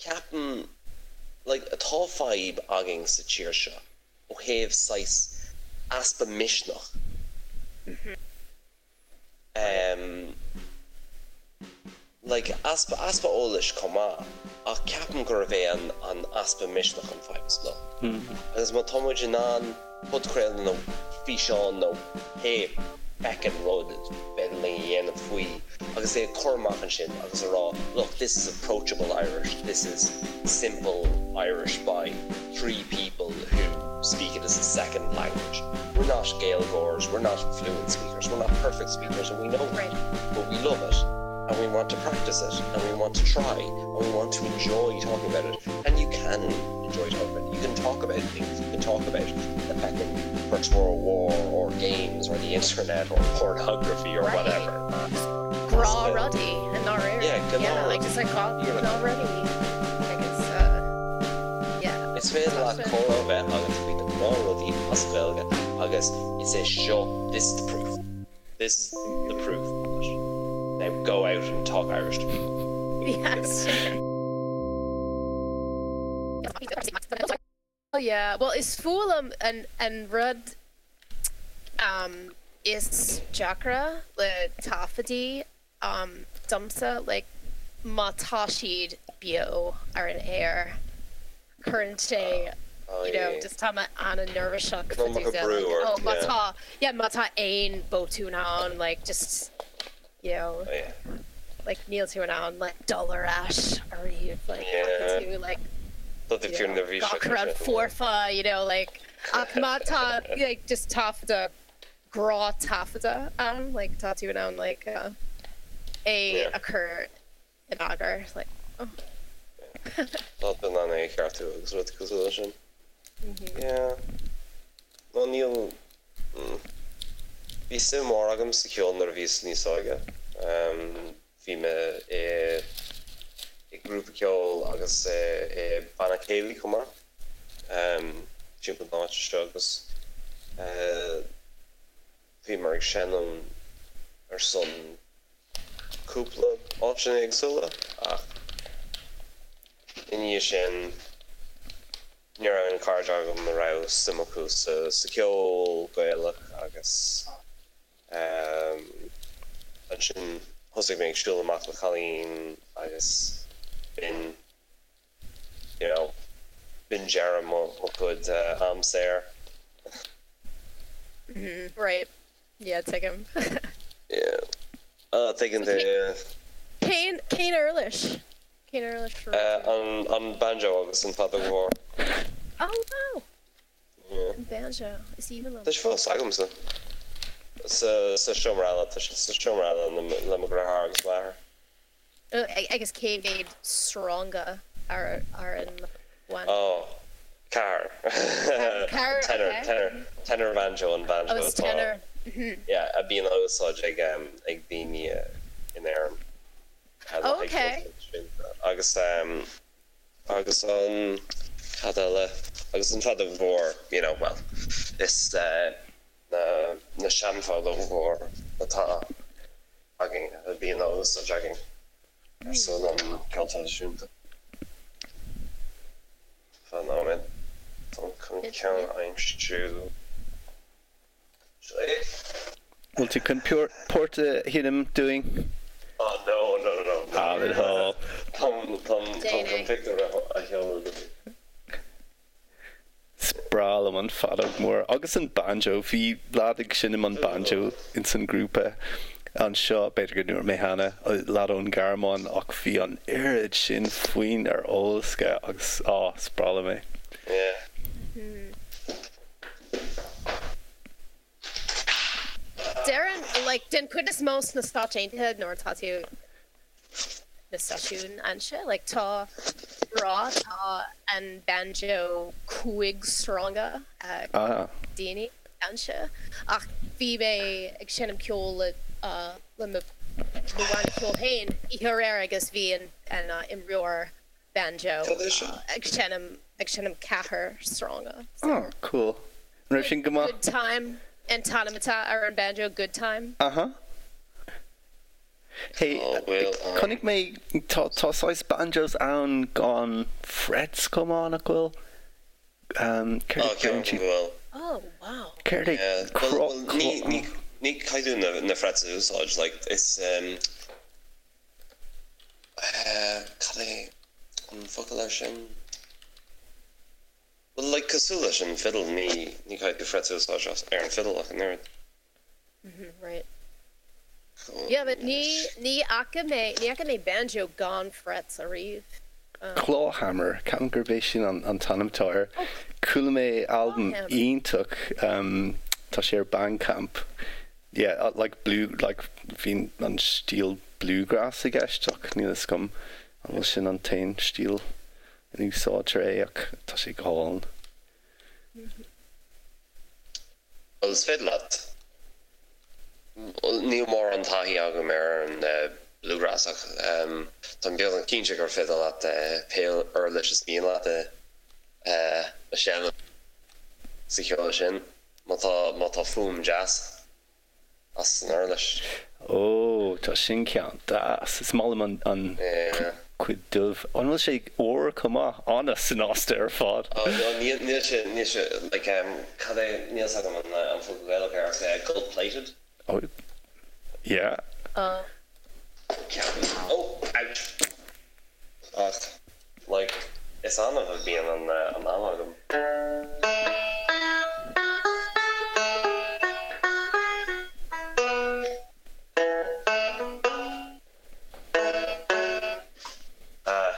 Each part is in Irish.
Ceapaim like tá fadhb againn sa tír seo ó thaobh saghas easpa misneach. Em like easpa easpa eolais chomh maith ach ceapaim gurbh é an an easpa misneach an fadhb is mó. Agus má tá muid in ann podchraoladh nó físeán nó pé feckin' rud is féidir linn a dhéanamh faoi agus é a chur amach ansin agus a rá look this is approachable Irish, this is simple Irish by 3 people who speak it as a second language. We're not Gaeilgeoirs, we're not fluent speakers, we're not perfect speakers and we know that, but we love it and we want to practice it and we want to try and we want to enjoy talking about it and you can enjoy talking about it. You can talk about things, you can talk about the feckin' First World War or games or the internet or pornography or whatever. Gnáthrudaí i ndáiríre. Yeah, like just like gnáthrudaí agus yeah. Is féidir leat comhrá a bheith agat faoi na gnáthrudaí as Gaeilge agus is é seo, this is the proof. This is the proof of it. Now go out and talk Irish to people. Yes. Yeah, well is fuath liom an an rud um is deacra le taifeadtaí um domsa like má tá siad beo ar an aer cuireann sé you know just tá mé an-neirbhíseach fá dtaobh de like oh má tá yeah má tá aon botún ann like just you know like níl tú in ann like dul ar ais ariamh like caithfidh tú like you know gach rud foirfe you know like ach má tá like just taifeadadh gnáth-taifeadadh ann like tá tú in ann like é a chur in eagar like oh. Tá tú in ann é a cheartú agus rudaí cosúil leis sin. Yeah. Nó níl Bhí suim mhór agam sa cheol nuair a bhíos níos óige. Bhí mé i i grúpa ceoil agus i banna céilí chomh maith timpeall na háite seo agus bhíomar ag seinm ar son cúpla áiteanna éagsúla ach i ndiaidh sin ní raibh aon chairde agam a raibh suim acu sa cheol Gaelach agus ansin thosaigh mé ag siúl amach le cailín agus b'in you know b'in deireadh mo chuid am saor. Right. Yeah, tuigim. Yeah. Ah, tuigeann tú, yeah. Cén, cén uirlis? Cén uirlis a raibh tú? An, an banjo agus an feadóg mhór. Oh wow! Yeah. An banjo, is aoibhinn liom. Tá sé fós agamsa. Sa, sa seomra eile, tá sé sa seomra eile le, le mo dheartháir agus m'athair. Agus cé mhéad sreanga ar ar an bhanjo? Oh, ceathair. Ceathair, Tenor, okay. tenor, tenor banjo an banjo Oh, it's atá, tenor. yeah, a bhíonn á úsáid ag ag daoine in Éirinn. Le Oh, haghaidh okay. ceol traidisiúnta. Agus agus an, cad eile? Agus an feadóg mhór, you know, well, is na na seanfheadóg mhór atá againn, a bhíonn á úsáid againn ar son an ceol traidisiúnta. Fan nóiméad, táim chun ceann a aimsiú. Seo é. Bhfuil tú chun port a sheinm dúinn? Oh no, no, no, no. Ah, le do thoil. Táim, táim, táim chun pictiúr a sheoladh duit. Is breá liom an feadóg mór agus an banjo. Bhí leaid ag seinm an banjo ins an grúpa anseo, b'fhéidir go ndúirt mé cheana, leaid ón Ghearmáin ach bhí an oiread sin foinn ar eolas aige agus á, is breá liom é. Yeah. Déarfainn, like, den chuid is mó sna Stáit Aontaithe nuair atá tú na seisiúin anseo, like, tá rá, tá an banjo 5 sreanga ag daoine anseo ach bhí mé ag seinm ceoil le le mo bhanna ceoil féin oíche aréir agus bhí an an imreoir banjo ag seinm ag seinm ceathair sreanga. Oh, cool. An raibh sin go maith? Good Time an t-ainm atá ar an banjo, Good Time. Aha. Hey, chonaic mé tá tá saghas banjos ann gan frets chomh maith, nach bhfuil? Céard a deireann siad? Oh, wow. Céard é cro cro? Ní caithfidh tú na frets a úsáid, like, is cad é an focal air sin? Well, like, cosúil leis an fiddle, ní ní caithfidh tú frets a úsáid ar an fiddle ach an oiread. Right. Yeah, but ní ní fhaca mé ní fhaca mé banjo gan frets ariamh. Clawhammer, ceapaim gurb é sin an an t-ainm atá air. Chuala mé albam iontach, tá sé ar Bandcamp. Yeah, like blue, like bhí an stíl bluegrass i gceist ach níl fhios agam an bhfuil sin an t-aon stíl a n-úsáidtear é ach tá sé go hálainn. Bhuel, is féidir leat. Níl mórán taithí agam ar an bluegrass ach táim beagnach cinnte gur féidir leat pé uirlis is mian leat a sheinm sa cheol sin má tá má tá fuaim deas. as an uirlis. Ó, tá sin ceann deas. Is maith liom an, an cuid dubh. An bhfuil sé ór chomh maith? An-shnasta ar fad. Ó, no, níl, níl sé, níl sé, like, cad é, níl 's agam an, an focal Gaelach air ach gold plated. Ó, yeah. Ó. Ceapaim. Ó, ouch. Ach, like, is annamh a bhíonn an, an am agam. Ah.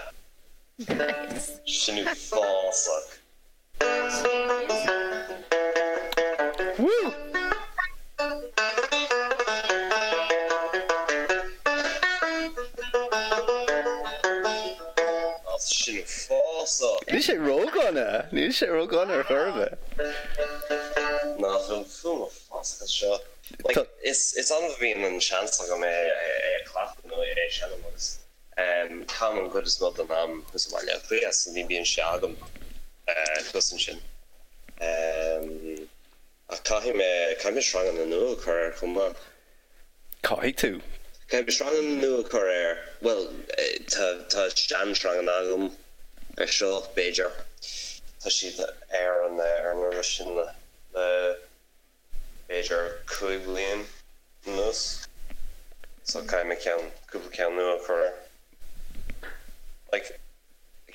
Nice. Sin uafásach. Woo! Sin uafásach. Níl sé ródhona! Níl sé ródhona ar chor ar bith. Nach bhfuil fuaim uafásach as seo? Like, is annamh a bhíonn an seans agam é a chleachtadh nó é a sheinm agus. Caithim an chuid is mó den am thuas i mBaile Átha Cliath so ní bhíonn sé agam thuas ansin. Ach caithfidh mé, caithfidh mé sreanganna nua a chur air chomh maith. Caithfidh tú. Caithfidh mé sreanganna nua a chur air, bhuel, tá, tá seansreanganna agam ar seo, b'fhéidir. Tá siad ar an, ar an uirlis sin le, le. b'fhéidir 5 bliain anuas so caithfidh mé ceann, cúpla ceann nua a chur air. Like,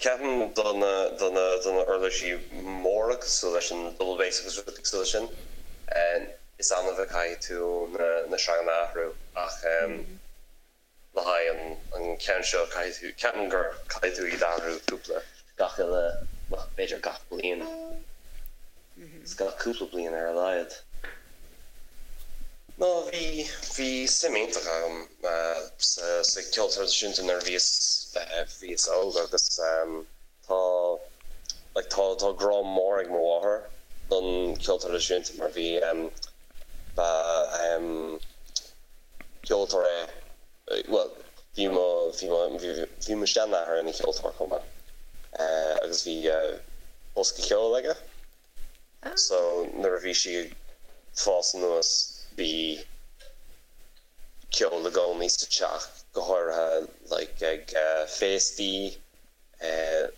ceapaim do na, do na, do na uirlisí móra cosúil leis an double bass agus rudaí cosúil leis sin, is annamh a chaithfidh tú na, na sreanganna a athrú ach le haghaidh an ceann seo caithfidh tú, ceapaim gur caithfidh tú iad a athrú cúpla, gach uile, bhuel b'fhéidir gach bliain, is gach cúpla bliain ar a laghad. No, bhí, bhí suim iontach agam sa, sa cheol traidisiúnta nuair a bhíos, bhíos óg agus tá, like tá, tá grá mór ag mo mháthair don cheol traidisiúnta mar bhí, ba, ceoltóir é, bhuel, bhí mo, bhí mo, bhí mo sheanathair ina cheoltóir chomh maith agus bhí bosca ceoil aige so nuair a bhí sí ag fás anuas bhí ceol i gcónaí sa teach, go háirithe like ag féastaí,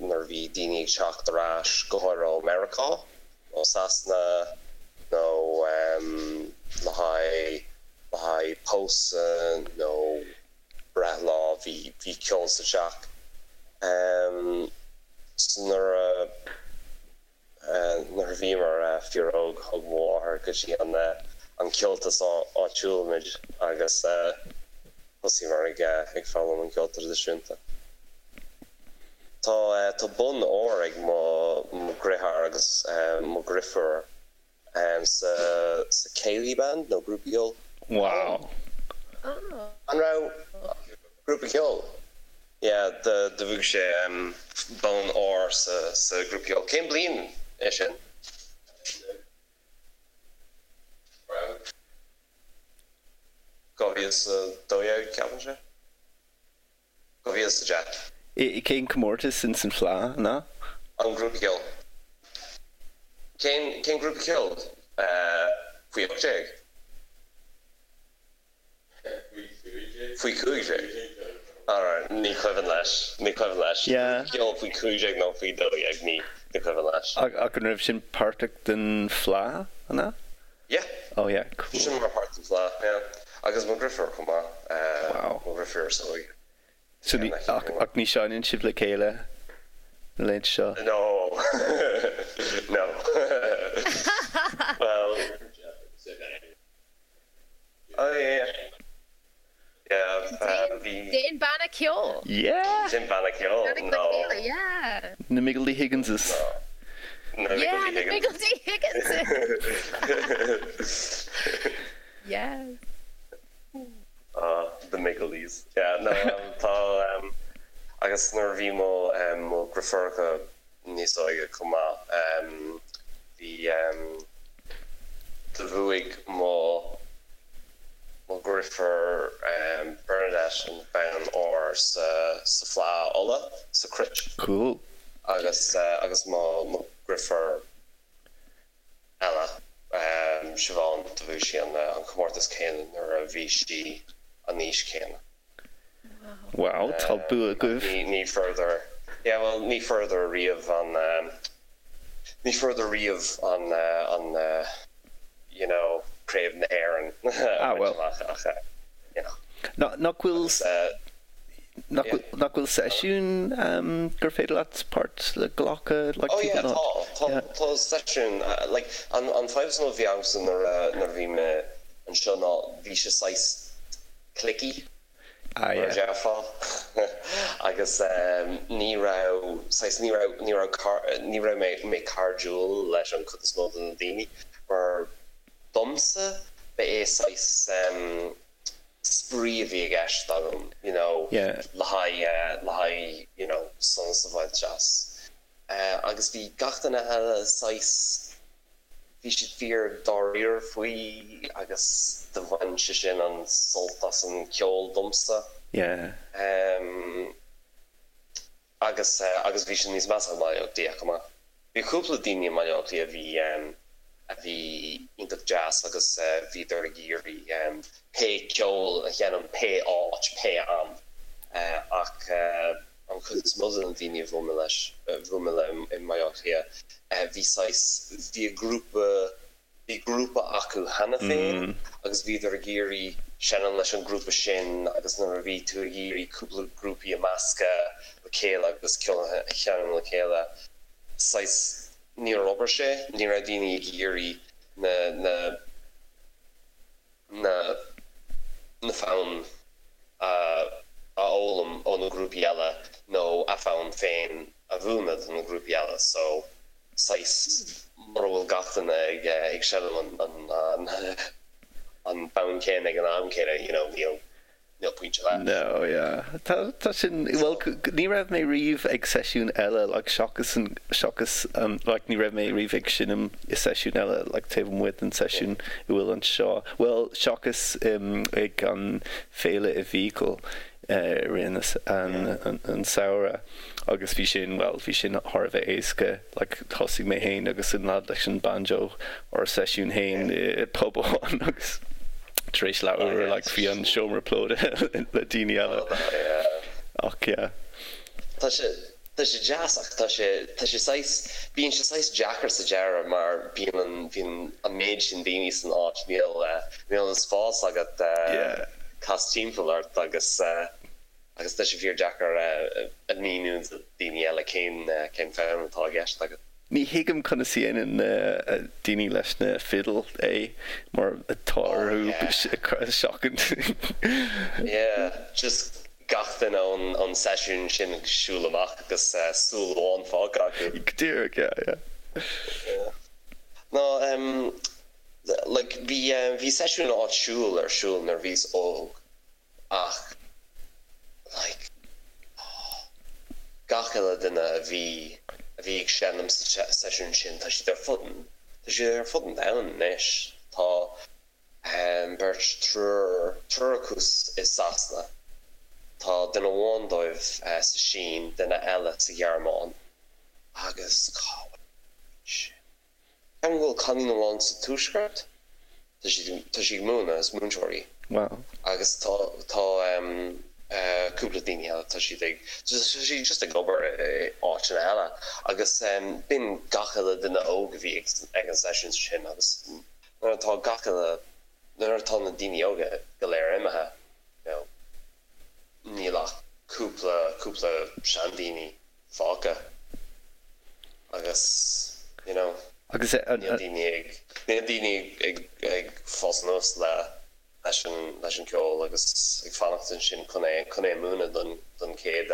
nuair a bhí daoine ag teacht ar ais, go háirithe ó Meiriceá nó Sasana nó le haghaidh le haghaidh pósadh nó breithlá, bhí bhí ceol sa teach. So nuair a Nuair a bhíomar fíor-óg thug mo mháthair go dtí an an ceoltas áitiúil muid agus thosaíomar ag ag foghlaim an ceol traidisiúnta. Tá tá bonn óir ag mo mo dheartháir agus mo dheirfiúr sa sa céilí band nó grúpa ceoil. Wow. An raibh grúpa ceoil? Yeah, do bhuaigh sé bonn óir sa sa grúpa ceoil. Cén bliain é sin? 2012 ceapaim sé. 2010. I cén comórtas ins an Fleadh, an ea? An grúpa ceoil. Cén cén grúpa ceoil? Faoi 18? Faoi 15? Alright, ní cuimhin leis, ní cuimhin leis. Yeah. Ceol faoi 15 nó faoi 12, ní cuimhin leis. Ach an raibh sin páirteach den Fleadh, an ea? Yeah. Oh yeah, cool. Sin mar páirt den Fleadh, yeah. Agus mo dheirfiúr chomh maith, Wow. mo dheirfiúr is óige. So ní, ach, ach ní seinneann sibh le chéile na laethanta seo? No. No. Well, oh yeah. Yeah, bhí. Déan banna ceoil. Yeah! Déan banna ceoil, Déan no. le chéile, yeah. Na Miggledy Higginses. Na Yeah, na Miggledy Higginses. Yes. Ah, the Miggledies. Yeah, no, tá, agus nuair a bhí mo, mo dheirfiúracha níos óige chomh maith, bhí, do bhuaigh mo, mo dheirfiúr Bernadette an bonn óir sa, sa Fleadh Uladh, sa Cruit. Cool. Agus, agus mo, mo dheirfiúr eile, Siobhán, do bhuaigh sí an comórtas céanna nuair a bhí sí an aois céanna. Wow, tá bua agaibh. Ní fuaireadar, yeah, bhuel, ní fuaireadar riamh an, ní fuaireadar riamh an, an, you know, Craobh na hÉireann a bhaint amach ach, you know. Nach bhfuil, nach bhfuil seisiún gur féidir leat páirt a ghlacadh like Oh yeah, tá, tá, tá seisiún, like, an, an fadhb is mó a bhí agamsa nuair a, nuair a bhí mé anseo ná bhí sé saghas cliquey, Ah mar a yeah. déarfá, agus ní raibh, saghas, ní raibh, ní raibh car, ní raibh mé, mé cairdiúil leis an chuid is mó de na daoine, mar domsa, ba é saghas, spraoi a bhí i gceist agam you know le haghaidh le haghaidh you know sonas a bhaint as. Agus bhí gach duine eile saghas, bhí siad fíor dáiríre faoi agus do bhain sé sin an sult as an ceol domsa. Yeah. Agus, agus bhí sé níos measa i mBaile Átha Cliath chomh maith. Bhí cúpla daoine i mBaile Átha Cliath a bhí, a bhí iontach deas agus bhíodar ag iarraidh pé ceol a sheinm pé áit, pé am. Ach an chuid is mó de na daoine a bhuail mé leis, a bhuail mé le i mBaile Átha Cliath, bhí saghas, bhí a grúpa, Bhí grúpa acu cheana féin agus bhíodar ag iarraidh seinm leis an grúpa sin agus nuair a bhí tú ag iarraidh cúpla grúpaí a meascadh le chéile agus ceol a sheinm le chéile, saghas, níor obair sé, ní raibh daoine ag iarraidh na, na, na, na fonn a fhoghlaim ó na grúpaí eile nó a fonn féin a mhúineadh do na grúpaí eile so saghas mura bhfuil gach duine ag ag seinm an an an fonn céanna ag an am céanna you know níl níl pointe leis. No yeah tá tá sin bhuel ní raibh mé riamh ag seisiún eile like seachas an seachas an like ní raibh mé riamh ag seinm i seisiún eile like taobh amuigh den seisiún a bhfuil anseo bhuel seachas ag an féile i bhFiacail i rith an an samhradh agus bhí sin bhuel bhí sin thar a bheith éasca like thosaigh mé fhéin agus an lad leis an banjo ár seisiún fhéin i pub amháin agus tar éis leathuair like bhí an seomra plódaithe le daoine eile ach yeah. Tá sé tá sé deas ach tá sé tá sé saghas bíonn sé saghas deacair sa deireadh mar bíonn an bíonn an méid sin daoine san áit níl níl an spás agat cas timpeall ort agus agus tá sé fíor deacair a mhíniú do daoine eile cén cén fonn atá i gceist agat. Ní thuigim conas a dhéanann na daoine leis na fidil é mar tá orthu seachaint. Yeah, just gach duine ón seisiún sin ag siúl amach agus súil amháin fágtha acu. Go díreach, yeah, yeah. Yeah. No, em, like, bhí, bhí seisiún áitiúil ar siúl nuair a bhíos óg ach like oh gach uile duine a bhí a bhí ag seinm sa seisiún sin tá siad ar fud an tá siad ar fud an domhain anois. Tá beirt triúr triúr acu i Sasana, tá duine amháin dóibh sa Sín, duine eile sa Ghearmáin agus cá bhfuil sin? Ceapaim go bhfuil cailín amháin sa Tuaisceart, tá sí tá sí ag múineadh, is múinteoir í. Wow. Agus tá tá cúpla daoine eile tá siad ag tá siad just ag obair i áiteanna eile agus b'in gach uile duine óg a bhí ag an seisiún sin agus nuair atá gach uile nuair atá na daoine óga go léir imithe you know níl ach cúpla cúpla seandaoine fágtha agus you know Agus an níl daoine ag níl daoine ag ag fás anuas le leis an leis an ceol agus ag fanacht ansin chun é chun é a múineadh don don chéad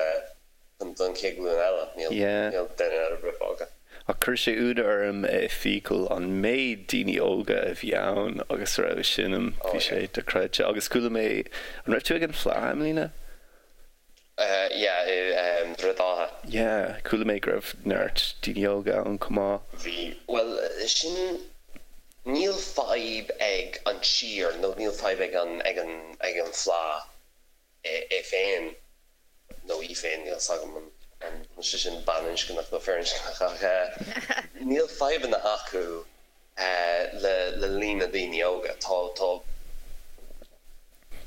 don chéad ghlúin eile níl Yeah. níl duine ar bith fágtha. Ach chuir sé ionadh orm i Feakle an méid daoine óga a bhí ann agus a raibh ag seinm, Oh bhí sé yeah. dochreidte. Agus chuala mé, an raibh tú ag an Fleadh, i mbliana? Yeah, i nDroichead Átha. Yeah, chuala mé go raibh neart daoine óga ann chomh maith. Bhí, bhuel, sin, níl fadhb ag an tír nó níl fadhb ag an, ag an, ag an Fleadh é féin nó í féin, níl 's agam an bhfuil sé sin baininscneach nó firinscneach ach níl fadhbanna acu le, le líon na daoine óga. Tá, tá.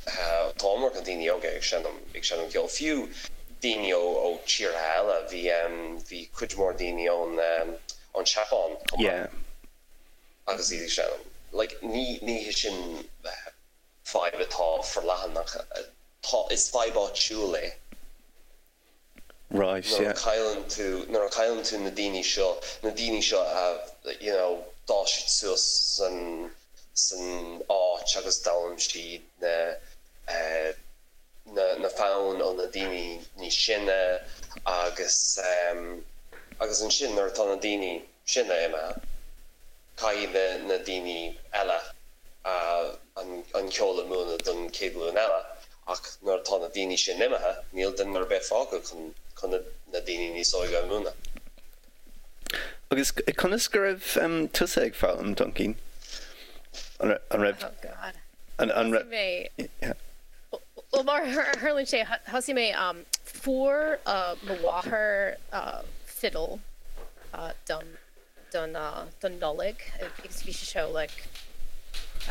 Tá iomarca daoine óga ag seinm ag seinm ceoil, fiú daoine ó ó tíortha eile. Bhí bhí cuid mhór daoine ón ón Seapáin chomh maith Yeah. agus iad ag seinm. Like ní ní hé sin fadhb atá forleathan ach tá is fadhb áitiúil é. Right, Nuair a yeah. chailleann tú, nuair a chailleann tú na daoine seo, na daoine seo a, you know, d'fhás siad suas san, san áit agus d'fhoghlaim siad na, eh, na, na foinn ó na daoine níos sine agus, em, agus ansin nuair atá na daoine sine imithe, Caithfidh na daoine eile an ceol a mhúineadh don chéad ghlúin eile ach nuair atá na daoine sin imithe, níl duine ar bith fágtha chun na daoine níos óige a mhúineadh. Agus conas go raibh tusa ag foghlaim, Doincín? An raibh. Oh God. An Thosaigh mé. Bhuel, mar a tharlaíonn sé, thosaigh mé, fuair mo mháthair fidil dom. don don Nollaig agus bhí sé seo like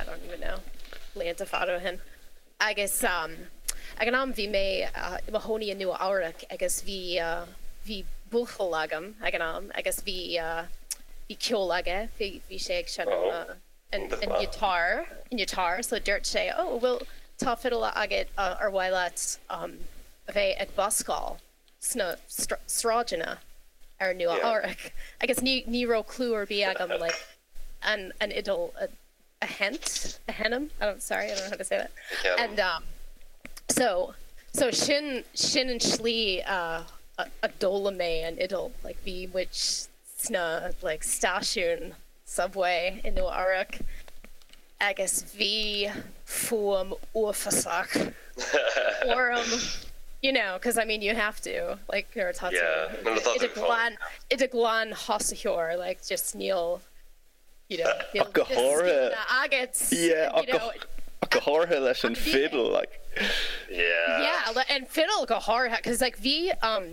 I don't even know blianta fada ó shin agus ag an am bhí mé i mo chónaí i Nua Eabhrac agus bhí bhí buachaill agam ag an am agus bhí bhí ceol aige bhí bhí sé ag seinm an an guitar an guitar so dúirt sé oh bhuel tá fidil agat ar mhaith leat a bheith ag buscáil sna sráideanna ar Nua Eabhrac agus ní ní raibh clue ar bith agam like an an fhidil a a sheinnt a sheinm I don't sorry I don't know how to say that and um so so sin sin an tslí a a d'fhoghlaim mé an fhidil like bhí muid sna like stáisiún subway i Nua Eabhrac agus bhí fuaim uafásach orm you know cause I mean you have to like nuair atá tú i do ghlan i do glanthosaitheoir like just níl you know níl Ach go háirithe agat yeah you know ach go háirithe leis an fiddle like yeah yeah and fiddle go háirithe cause like bhí um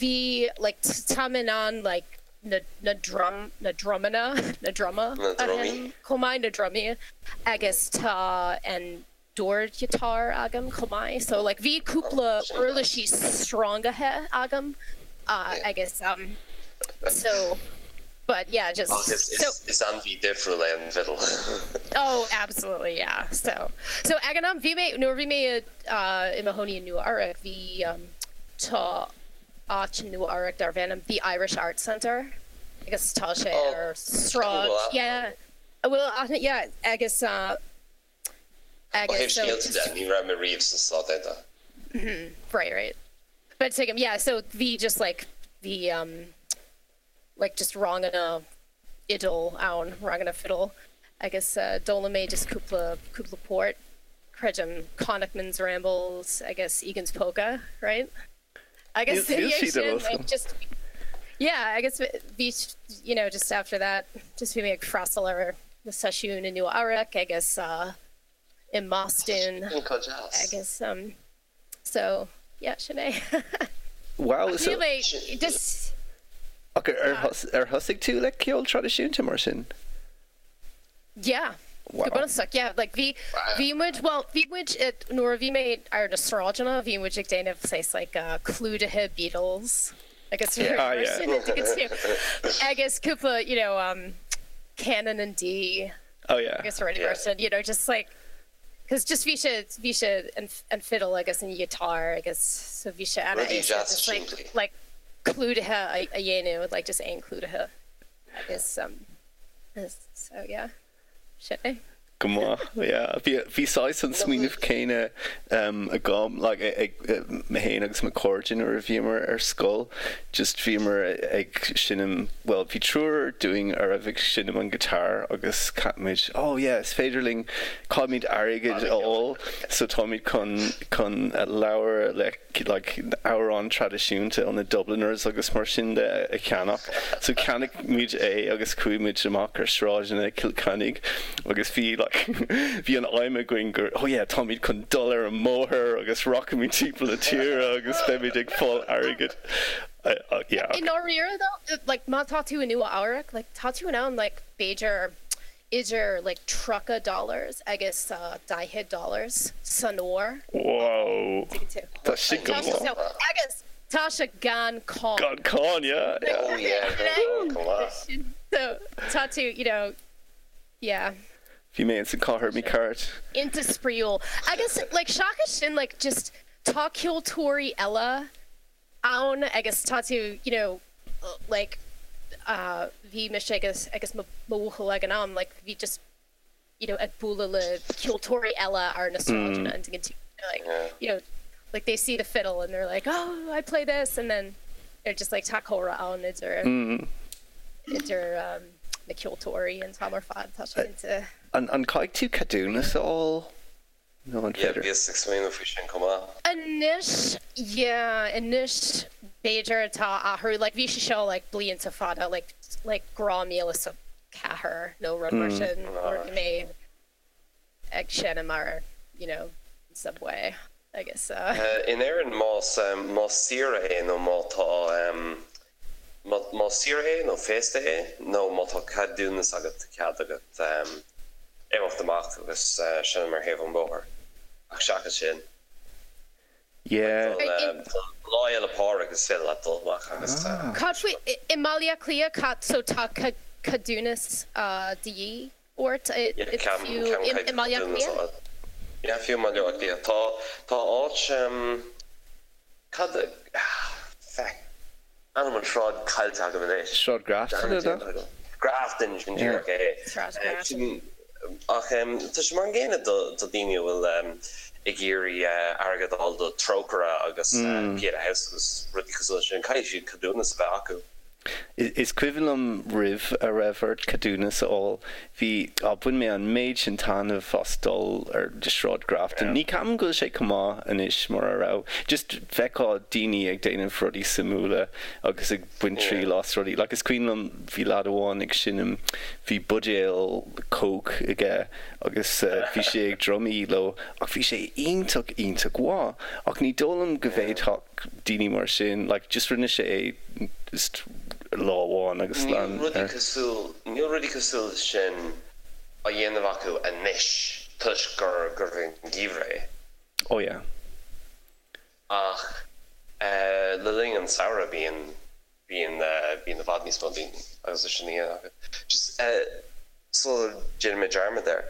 bhí like tá mé in ann like na na drum na drumanna na druma Na a drumaí. sheinm chomh maith na drumaí agus tá an dordghiotár agam chomh maith so like bhí cúpla Sin uirlisí sreangaithe agam Yeah. agus um so but yeah just Ach is so is is ainmhí difriúil é an fidil. Oh absolutely yeah so so ag an am bhí mé nuair a bhí mé i mo chónaí i Nua Eabhrac bhí um tá áit i Nua Eabhrac darb ainm The Irish Arts Center agus tá sé Oh, ar sráid cool. yeah bhfuil aithne yeah agus Ó agus thaobh so scéalta de, ní raibh mé riamh sna Stáit Aontaithe. right right but tuigim yeah so bhí just like bhí um like just ranganna fhidil ann, ranganna fiddle agus d'fhoghlaim mé just cúpla cúpla port, creidim Connachtman's Rambles agus Egan's Polka, right? Agus Níl ina dhiaidh siad ar sin eolas like agam. just yeah agus bhí you know just after that just bhí mé ag freastal ar na seisiúin i Nua Eabhrac agus i mBoston Sin chomh deas. agus um so yeah sin é. Wow Ach so níl mé just ach ar ar thosaigh tú le ceol traidisiúnta mar sin? Yeah. Go bunúsach, yeah. Like bhí, bhí muid, bhuel, bhí muid, nuair a bhí mé ar na sráideanna, bhí muid ag déanamh saghas like clúdaithe Beatles agus mar sin agus cúpla, you know, Canon in D agus rudaí mar sin, you know, just like, cos just bhí sé, bhí sé an fiddle agus an guitar agus so bhí sé an-éasca just like, like clúdaithe a dhéanamh, like just aon clúdaithe agus so yeah. Sin é. Go maith, yeah. Bhí, bhí saghas an smaoineamh céanna agam, like, ag mé féin agus mo chairde nuair a bhíomar ar scoil, just bhíomar ag seinm, bhuel, bhí triúr dúinn a raibh ag seinm an guitar agus cheap muid, oh yeah, is féidir linn, caithfimid airgead a fháil, so táimid chun, chun leabhar le like amhráin traidisiúnta ó na Dubliners agus mar sin de a cheannach. So cheannaigh muid é agus chuaigh muid amach ar sráideanna Chill Chainnigh agus bhí like bhí an aidhm againn gur oh yeah táimid chun dul ar an mbóthar agus rachaimid timpeall na tíre agus beimid ag fáil airgid. Yeah. I ndáiríre though, like má tá tú i Nua Eabhrac, like tá tú in ann like b'fhéidir idir like 30 dollars agus 40 dollars san uair. Wow! Tá sin go maith. Agus tá sé gan cáin. Gan cáin, yeah, yeah. Oh yeah, gan cáin, go maith. So tá tú, you know, yeah. Bhí mé ins an chathair mícheart. Iontach spraíúil. Agus like seachas sin like just tá ceoltóirí eile ann agus tá tú you know like bhí mise agus agus mo bhuachaill ag an am like bhí just you know ag bualadh le ceoltóirí eile ar na sráideanna and like you know like they see the fiddle and they're like oh I play this and then they're just like tá comhrá ann idir idir na ceoltóirí an t-am ar fad tá sé iontach. An gcaithfidh tú ceadúnas a fháil? Nó an Yeah, féidir? bhíos ag smaoineamh faoi sin chomh maith. Anois, yeah, anois b'fhéidir tá athrú, like bhí sé seo like blianta fada, like, like 2004 nó rud mar sin nuair a bhí mé ag seinm ar, you know, subway agus uh. In Éirinn más, más saoire é nó má tá, má, más saoire é nó féasta é nó má tá ceadúnas agat, tá cead agat imeacht amach agus seinm ar thaobh an bhóthair. Ach seachas sin, Yeah. Lá Fhéile Pádraig is féidir leat dul amach agus. Cad faoi i mBaile Átha Cliath, cad, so tá ceadúnas de dhíth ort fiú i mBaile Átha Cliath? Yeah, fiú i mBaile Átha Cliath. Tá, tá áit, cad, feck. Ainm an sráid caillte agam anois. Sráid Grafton, an ea? Grafton, sin díreach é. Sráid Grafton. Ach tá sé mar an gcéanna do dhaoine a bhfuil ag iarraidh airgead a fháil do Trócaire agus Pieta House agus rudaí cosúil leis sin. Caithfidh siad ceadúnas a bheith acu. Is cuimhin liom roimh a raibh ort ceadúnas a fháil, bhí, á, bhain mé an méid sin taitneamh as dul ar Shráid Grafton. Ní ceapaim go bhfuil sé chomh maith anois mar a raibh. Just bhfeicfeá daoine ag déanamh rudaí suimiúla agus ag baint triail as rudaí. Like is cuimhin liom bhí leaid amháin ag seinm, bhí buidéal Coke aige agus bhí sé ag drumaí leo ach bhí sé iontach iontach mhaith. Ach ní dóigh liom go bhféadfadh daoine mar sin, like just rinne sé é just lá amháin agus lean Níl rudaí cosúil, níl rudaí cosúil leis sin á dhéanamh acu anois toisc gur, gurbh é an geimhreadh é. Oh yeah. Ach le linn an samhradh bíonn, bíonn, bíonn i bhfad níos mó daoine agus é sin á dhéanamh acu. Just sula ndéanfaidh mé dearmad air,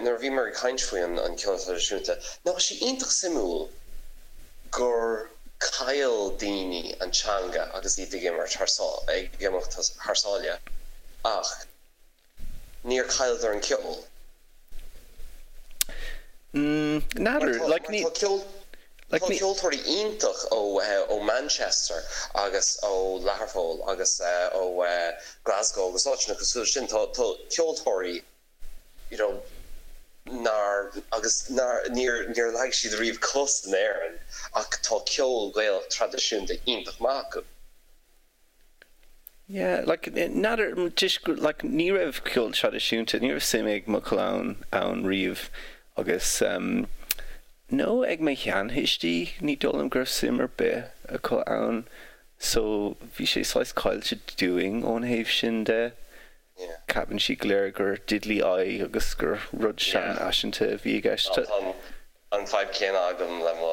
nuair a bhíomar ag caint faoi an ceol traidisiúnta, nach bhfuil sé iontach suimiúil gur chaill daoine an teanga agus iad ag imirt thar, ag imeacht thar sáile ach níor chailleadar an ceol. N'fheadar, like ní. Tá ceoltóirí iontach ó Manchester agus ó Learpholl agus ó Glasgow agus áiteanna cosúil leis sin. Tá ceoltóirí you know nár agus nár níor níor leag siad riamh cos in Éirinn ach tá ceol Gaelach traidisiúnta iontach maith acu. Yeah, like, n'fheadar, just, like, ní raibh ceol traidisiúnta, ní raibh suim ag mo chlann ann riamh agus em, nó ag mo sheanthuistí, ní dóigh liom go raibh suim ar bith acu ann so bhí sé saghas caillte dúinn ón thaobh sin de. Ceapann siad go léir gur diddly eye agus gur rud seanfhaiseanta a bhí i gceist. Tá an fadhb céanna agam le mo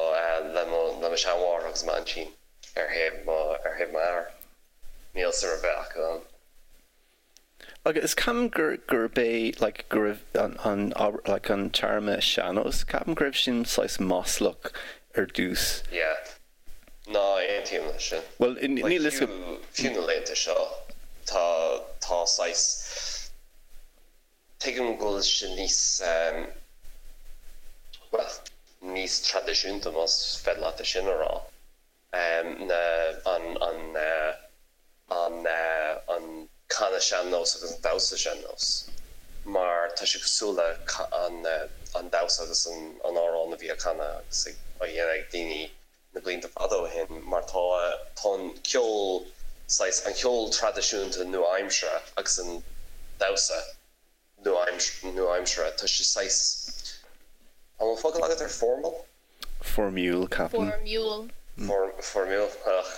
le mo le mo sheanmháthair agus m'aintín ar thaobh mo ar thaobh m'athar. Níl suim ar bith acu ann. Agus ceapaim gur gurb é like go raibh an an like an téarma sean-nós, ceapaim go raibh sin saghas maslach ar dtús. Yeah. Ná aontaím leis sin. Bhuel, níl fhios agam. Fiú na laethanta seo, tá, tá saghas, tuigim go bhfuil sé níos, bhuel, níos traidisiúnta, más féidir leat é sin a rá, na, an, an, an, an canadh sean-nós agus an damhsa sean-nós, mar tá sé cosúil le an, an damhsa agus an, an amhrán a bhí á canadh agus ag, á dhéanamh ag daoine na blianta fada ó shin mar tá tá an ceol saghas an ceol traidisiúnta nua-aimseartha agus an damhsa nua-aimseartha tá sé saghas an bhfuil focal agat ar formal? Foirmiúil ceapaim. Foirmiúil. Foirmiúil ach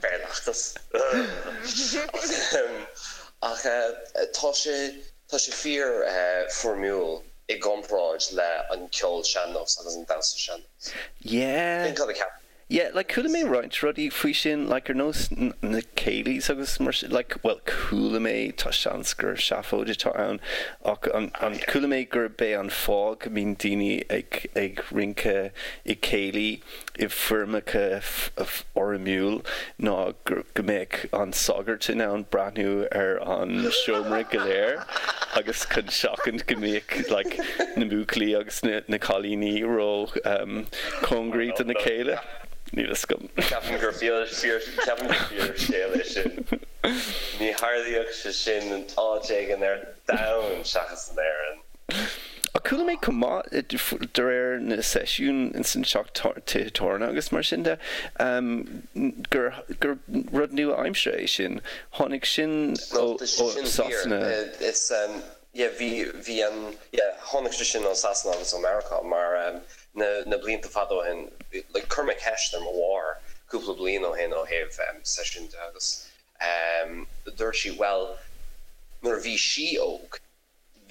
Béarlachas ach tá sé Tá sé fíor foirmiúil i gcomparáid le an ceol sean-nós agus an damhsa sean-nós. Yeah. Sin cad a ceapaim. Yeah, like chuala mé roinnt rudaí faoi sin, like ar nós na céilís agus mar sin, like, bhuel chuala mé, tá seans gur seafóid atá ann, ach an, an, chuala mé gurb é an fáth go mbíonn daoine ag, ag rince i céilí i bhfoirmeacha foirmiúil ná go mbeadh an sagart in ann breathnú ar an seomra go léir agus chun seachaint go mbeadh like na buachaillí agus na cailíní ró cóngaraí do na chéile. Níl fhios agam. Ceapaim gur fíor ceapaim gur fíor scéal é sin. Ní tharlaíodh sé sin in áit éigin ar domhan seachas in Éirinn. Ach chuala mé chomh maith, de réir na seisiún ins an teach tithe tábhairne agus mar sin de, gur gur rud nua-aimseartha é sin. Tháinig sin ó Sasana. Is yeah bhí bhí an yeah tháinig sé sin ó Sasana agus ó Meiriceá mar na na blianta fada ó shin like chuir mé ceist ar mo mháthair cúpla bliain ó shin ó thaobh seisiún de agus dúirt sí bhuel nuair a bhí sí óg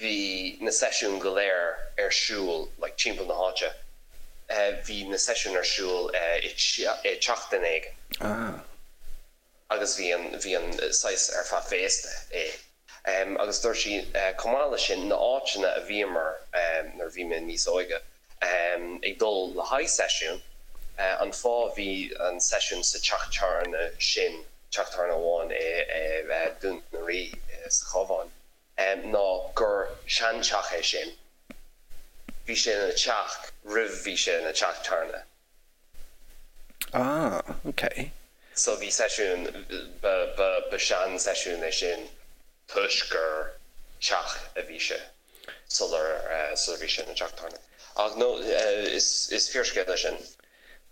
bhí na seisiúin go léir ar siúl like timpeall na háite, bhí na seisiúin ar siúl i teach duine éigin. Ah. Agus bhí an, bhí an saghas ar feadh féasta é. Agus dúirt sí chomh maith leis sin, na áiteanna a bhíomar nuair a bhí mé níos óige ag dul le haghaidh seisiún, an fáth bhí an seisiún sa teach tábhairne sin, teach tábhairne amháin i Dún na Rí sa Chabhán, ná gur seanteach é sin. Bhí sé ina teach roimh bhí sé ina teach tábhairne. Ah, ok. So bhí seisiún, ba, ba, ba sean-seisiún é sin toisc gur teach a bhí sé sular, sular bhí sé ina teach tábhairne. Ach no, is, is fíorscéal é sin.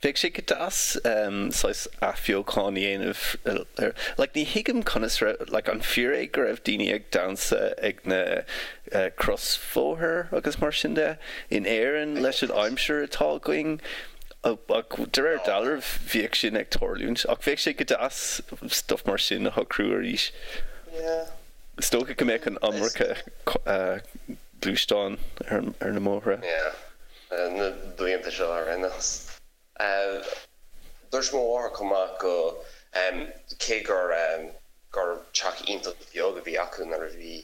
Bheadh sé go deas saghas athbheochan a dhéanamh ar, like ní thuigim conas raibh, like an fíor é go raibh daoine ag damhsa ag na crosbhóthair agus mar sin de in Éirinn leis an aimsir atá againn ach de réir dealraimh bhíodh sin ag tarlúint ach bheadh sé go deas stuff mar sin a shocrú arís. Yeah. Is dócha go mbeadh an iomarca gluaisteán ar na mbóithre. Yeah. Na blianta seo ar aon nós. Dúirt mo mháthair chomh maith go, cé gur gur teach iontach beag a bhí acu nuair a bhí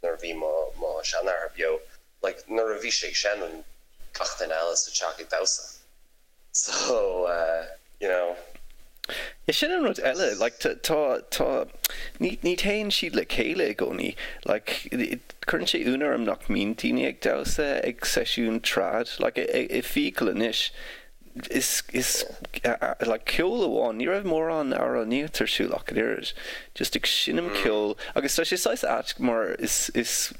nuair a bhí mo mo sheanathair beo, like nuair a bhí sé ag seinm gach duine eile sa teach ag damhsa. So, you know. Yeah, sin an rud eile, like tá, tá, ní, ní théann siad le chéile i gcónaí. Like, cuireann sé ionadh orm nach mbíonn daoine ag damhsa ag seisiún trad. Like, i Fiacail anois, is, is, like, ceol amháin, ní raibh mórán amhránaíocht ar siúl ach an oiread. Just ag seinm ceoil, agus tá sé saghas ait mar is, is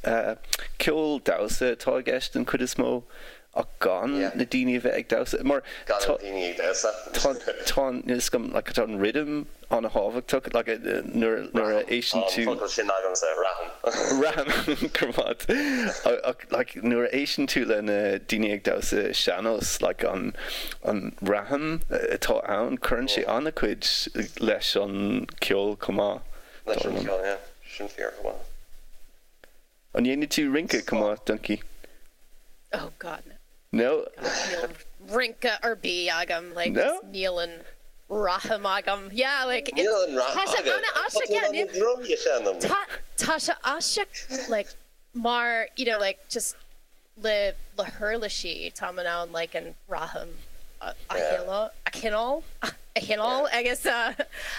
ceol damhsa atá i gceist den chuid is mó. ach gan na daoine a bheith ag damhsa mar Gan na daoine ag damhsa. tá tá is go like tá an rhythm an-thábhachtach like nuair nuair a éisteann tú. Tá an focal sin agamsa, raithim. Raithim, go raibh maith. Ach like nuair a éisteann tú le na daoine ag damhsa sean-nós like an an raithim atá ann cuireann sé an-chuid leis an ceol chomh maith. Leis an ceol, yeah. Sin fíor chomh maith. An ndéanann tú rince chomh maith, Donkey? Oh God, no. No? Níl rince ar bith agam, like, No? níl an rithim agam. Yeah, like, it's, Níl an rithim tá sé agat. an-aisteach, Tá yeah, tú in ann níl, na drumaí a sheinm. tá, tá sé aisteach, like, mar, you know, like, just le, le huirlisí, táim in ann, like, an rithim a, a Yeah. choinneáil, a choinneáil, a choinneáil agus, uh,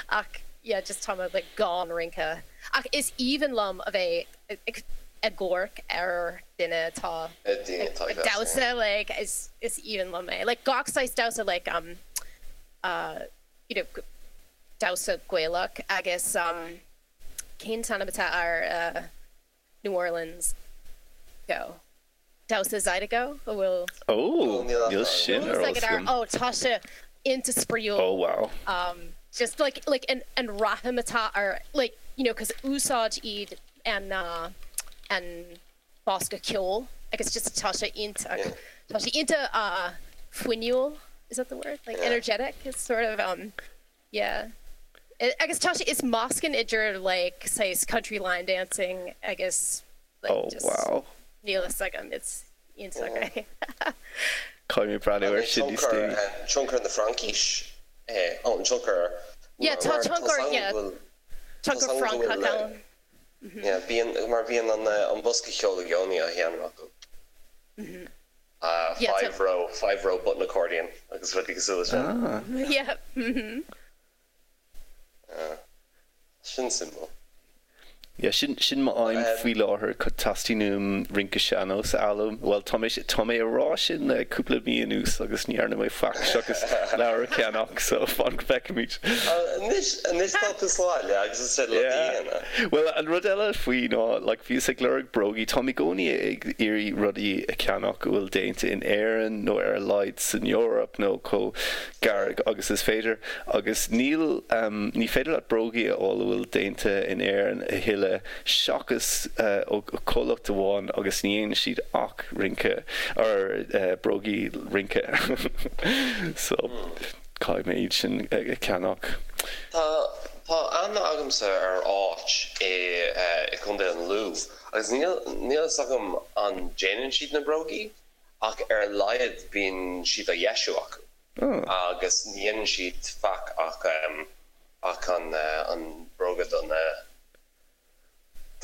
ach, yeah, just tá mé, like, gan rince. Ach is aoibhinn liom a bheith ag amharc ar duine atá ag damhsa, like, is aoibhinn liom é. Like, gach saghas damhsa, like, um, uh, you know, damhsa Gaelach agus, um, cén t-ainm atá ar, uh, New Orleans go? Damhsa Zydeco, a bhfuil. Oh, níl sin ar eolas agam. Oh, tá sé iontach spraíúil. Oh, wow. Um, just like, like an, an rithim atá ar, like, you know, 'cause úsáid iad an, uh, an bosca ceoil agus just tá sé iontach, tá sé iontach, uh, fuinniúil, is that the word? Like energetic, it's sort of, um, Yeah. Agus tá sé, is meascán idir like saghas country line dancing agus like Oh just wow. níl fhios agam, it's iontach é. Caithfidh mé breathnú air sin níos déanaí. Tionchar na Fraincise é, oh an tionchar Yeah, tá tionchar, yeah, tionchar Francach ann. Yeah, bíonn, mar bíonn an bosca ceoil i gcónaí á sheinm acu. Yeah, 5 row, 5 row button accordion agus rudaí cosúil leis sin. Ah. Yeah. Sin suimiúil. Yeah, sin, sin m'aidhm faoi láthair, teastaíonn uaim rince sean-nós a fhoghlaim. Bhuel, tá mé, tá mé a rá sin le cúpla mí anuas agus ní dhearna mé faic seachas leabhar a cheannach, so fan go bhfeicfimid. Anois, anois tá tú sa bhaile agus is féidir leat a dhéanamh. Bhuel, an rud eile faoi ná, like, bhíos ag lorg brógaí, táim i gcónaí ag iarraidh rudaí a cheannach a bhfuil déanta in Éirinn nó ar a laghad san Eoraip nó chomh gar agus is féidir agus níl, ní féidir leat brógaí a fháil a bhfuil déanta in Éirinn a thuilleadh seachas ó chomhlacht amháin agus ní dhéanann siad ach rince, or brógaí rince so caithfidh mé iad sin a cheannach. Tá, tá aithne agamsa ar áit i, i gContae an Lú agus níl, níl fhios agam an déanann siad na brógaí ach ar a laghad bíonn siad á dheisiú acu agus ní dhéanann siad faic ach ach an an bróga don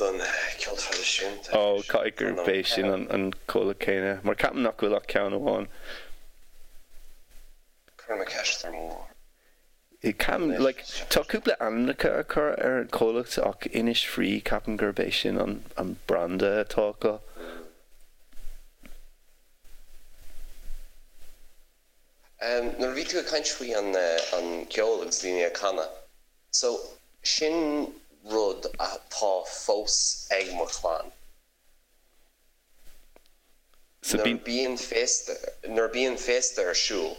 don ceol traidisiúnta. Ó, caithfidh gurb é sin an comhlacht céanna, mar ceapaim nach bhfuil ach ceann amháin. Cuirfidh mé ceist ar mo mháthair. Ceapaim, like, tá cúpla ainmneacha á cur ar an chomhlacht ach Innisfree, ceapaim gurb é sin an an branda atá acu. Nuair a bhí tú ag caint faoi an an ceol agus daoine ag canadh, so sin rud atá fós ag mo chlann. So Nuair a bíonn. bíonn féasta, nuair a bíonn féasta ar siúl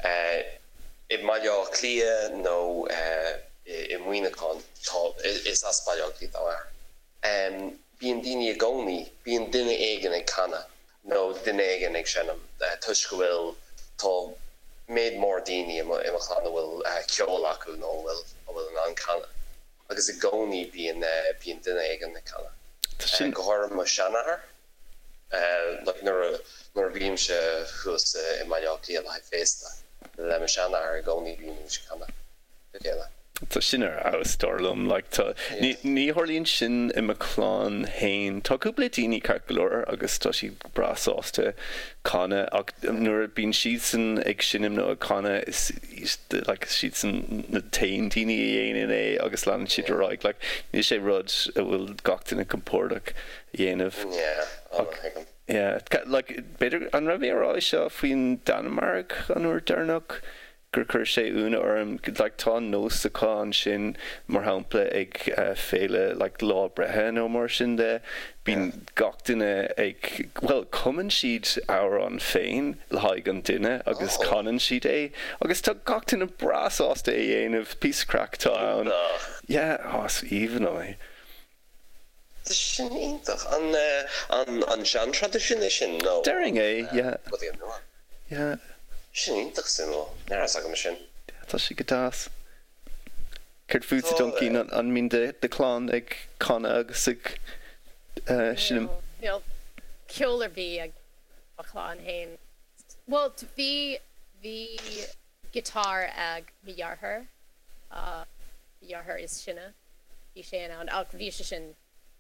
i mBaile Átha Cliath nó i Muineachán, tá, is as Baile Átha Cliath dá m'athair, bíonn daoine i gcónaí, bíonn duine éigin ag canadh nó duine éigin ag seinm toisc go bhfuil, tá méid mór daoine i mo, i mo chlann a bhfuil ceol acu nó a bhfuil, a bhfuil in ann canadh. Agus i gcónaí bíonn, bíonn duine éigin ag canadh. Tá sin. Go háirithe mo sheanathair. Like nuair a, nuair a bhímse thuas i mBaile Átha Cliath le haghaidh féasta le mo sheanathair i gcónaí bímid ag canadh le chéile. Tá sin ar fheabhas dar liom. Like tá, ní, ní tharlaíonn sin i mo chlann fhéin. Tá cúpla daoine ceart go leor agus tá siad breá sásta canadh ach nuair a bíonn siadsan ag seinm nó ag canadh is like siadsan na t-aon daoine a dhéanann é agus leanann siad ar aghaidh. Like níl sé rud a bhfuil gach duine compordach a dhéanamh. Yeah, oh Ach tuigim. yeah, like b'fhéidir an raibh mé a rá é seo faoin Danmhairg an uair deireanach? gur chuir sé ionadh orm, like tá an nós acu ansin mar shampla ag féile like lá breithe nó mar sin de, bíonn gach duine ag, bhuel cumann siad amhrán féin le haghaidh an duine agus canann siad é agus tá gach duine breá sásta é a dhéanamh, píosa craic atá ann. Iontach. Yeah, oh is aoibhinn liom é. Tá sin iontach. An an an sean-traidisiún é sin nó Déarfainn é, yeah. rudaí nua? Yeah. Sin iontach suimiúil. Ní raibh fhios agam sin. Yeah, tá sé go deas. Céard fútsa Donkey, an mbíonn do chlann ag canadh agus ag seinm? Níl ceol ar bith ag mo chlann féin. Bhuel, bhí, bhí guitar ag mo dheartháir, mo dheartháir is sine, bhí sé in ann, ach bhí sé sin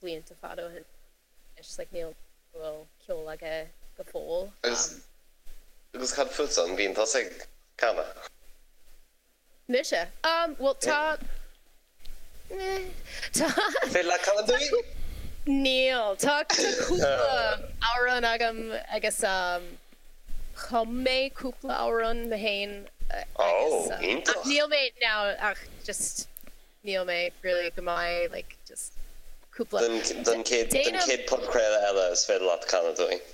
blianta fada ó shin anois, like níl, bhfuil ceol aige go fóill. Agus cad fútsa, an mbíonn tusa ag canadh? Mise? Um, bhuel tá, eh, tá. Féidir leat canadh dúinn? Níl. Tá cúpla amhrán agam agus um, chum mé cúpla amhrán mé féin agus Oh, iontach. ach níl mé now ach just níl mé really go maith like just cúpla. Don chéad, don chéad podchraoladh eile is féidir leat canadh dúinn.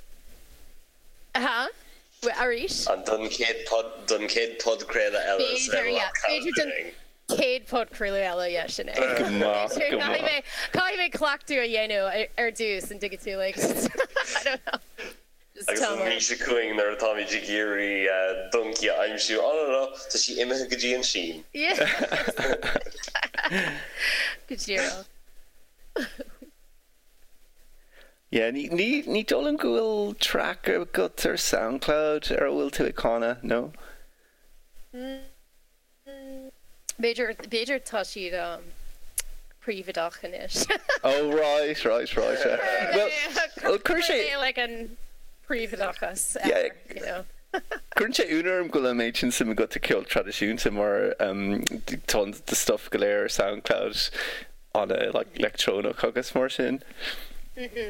Aha. Arís? An don chéad pod, don chéad podchraoladh eile is B'fhéidir, yeah. B'fhéidir don chéad podchraoladh eile, yeah, sin é. Go maith, go maith. Caithfidh mé, caithfidh mé cleachtadh a dhéanamh ar dtús, an dtuigeann tú, like, I don't know. Just Agus an mhí seo chugainn nuair atáimid ag iarraidh Donkey a aimsiú, oh no no, tá sí imithe go dtí an tSín. Yeah. Go díreach. Yeah, ní, ní, ní dóigh liom go bhfuil track agat ar Soundcloud ar a bhfuil tú ag canadh, no? B'fhéidir, b'fhéidir tá siad um, príobháideach anois. Oh right, right, right, yeah. Well, well chuir sé... like an príobháideachas Yeah. you know. Cuireann sé ionadh orm go bhfuil an méid sin suim agat i ceol traidisiúnta mar um, tá an do stuff go léir ar Soundcloud ana like leictreonach agus mar sin.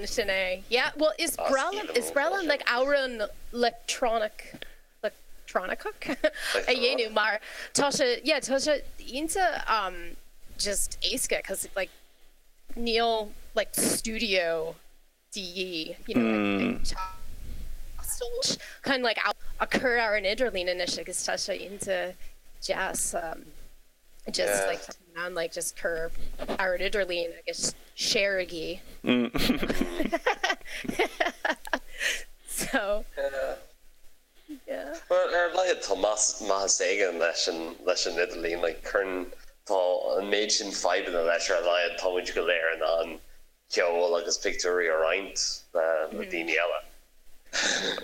Sin é. Yeah, well is breá liom, is breá liom like amhrán leictreonach, leictreonach a dhéanamh mar tá sé, yeah, tá sé iontach um just éasca cause like níl like studio de dhíth, you know, ag teastáil chun like a chur ar an idirlíon anois agus tá sé iontach deas um just like tá in ann like just cur ar an idirlíon agus shareigí. So yeah. Well ar a laghad tá maitheas éigin leis an leis an idirlíon like cuireann tá an méid sin fadhbanna leis ar a laghad tá muid go léir in ann ceol agus pictiúirí a roinnt le daoine eile.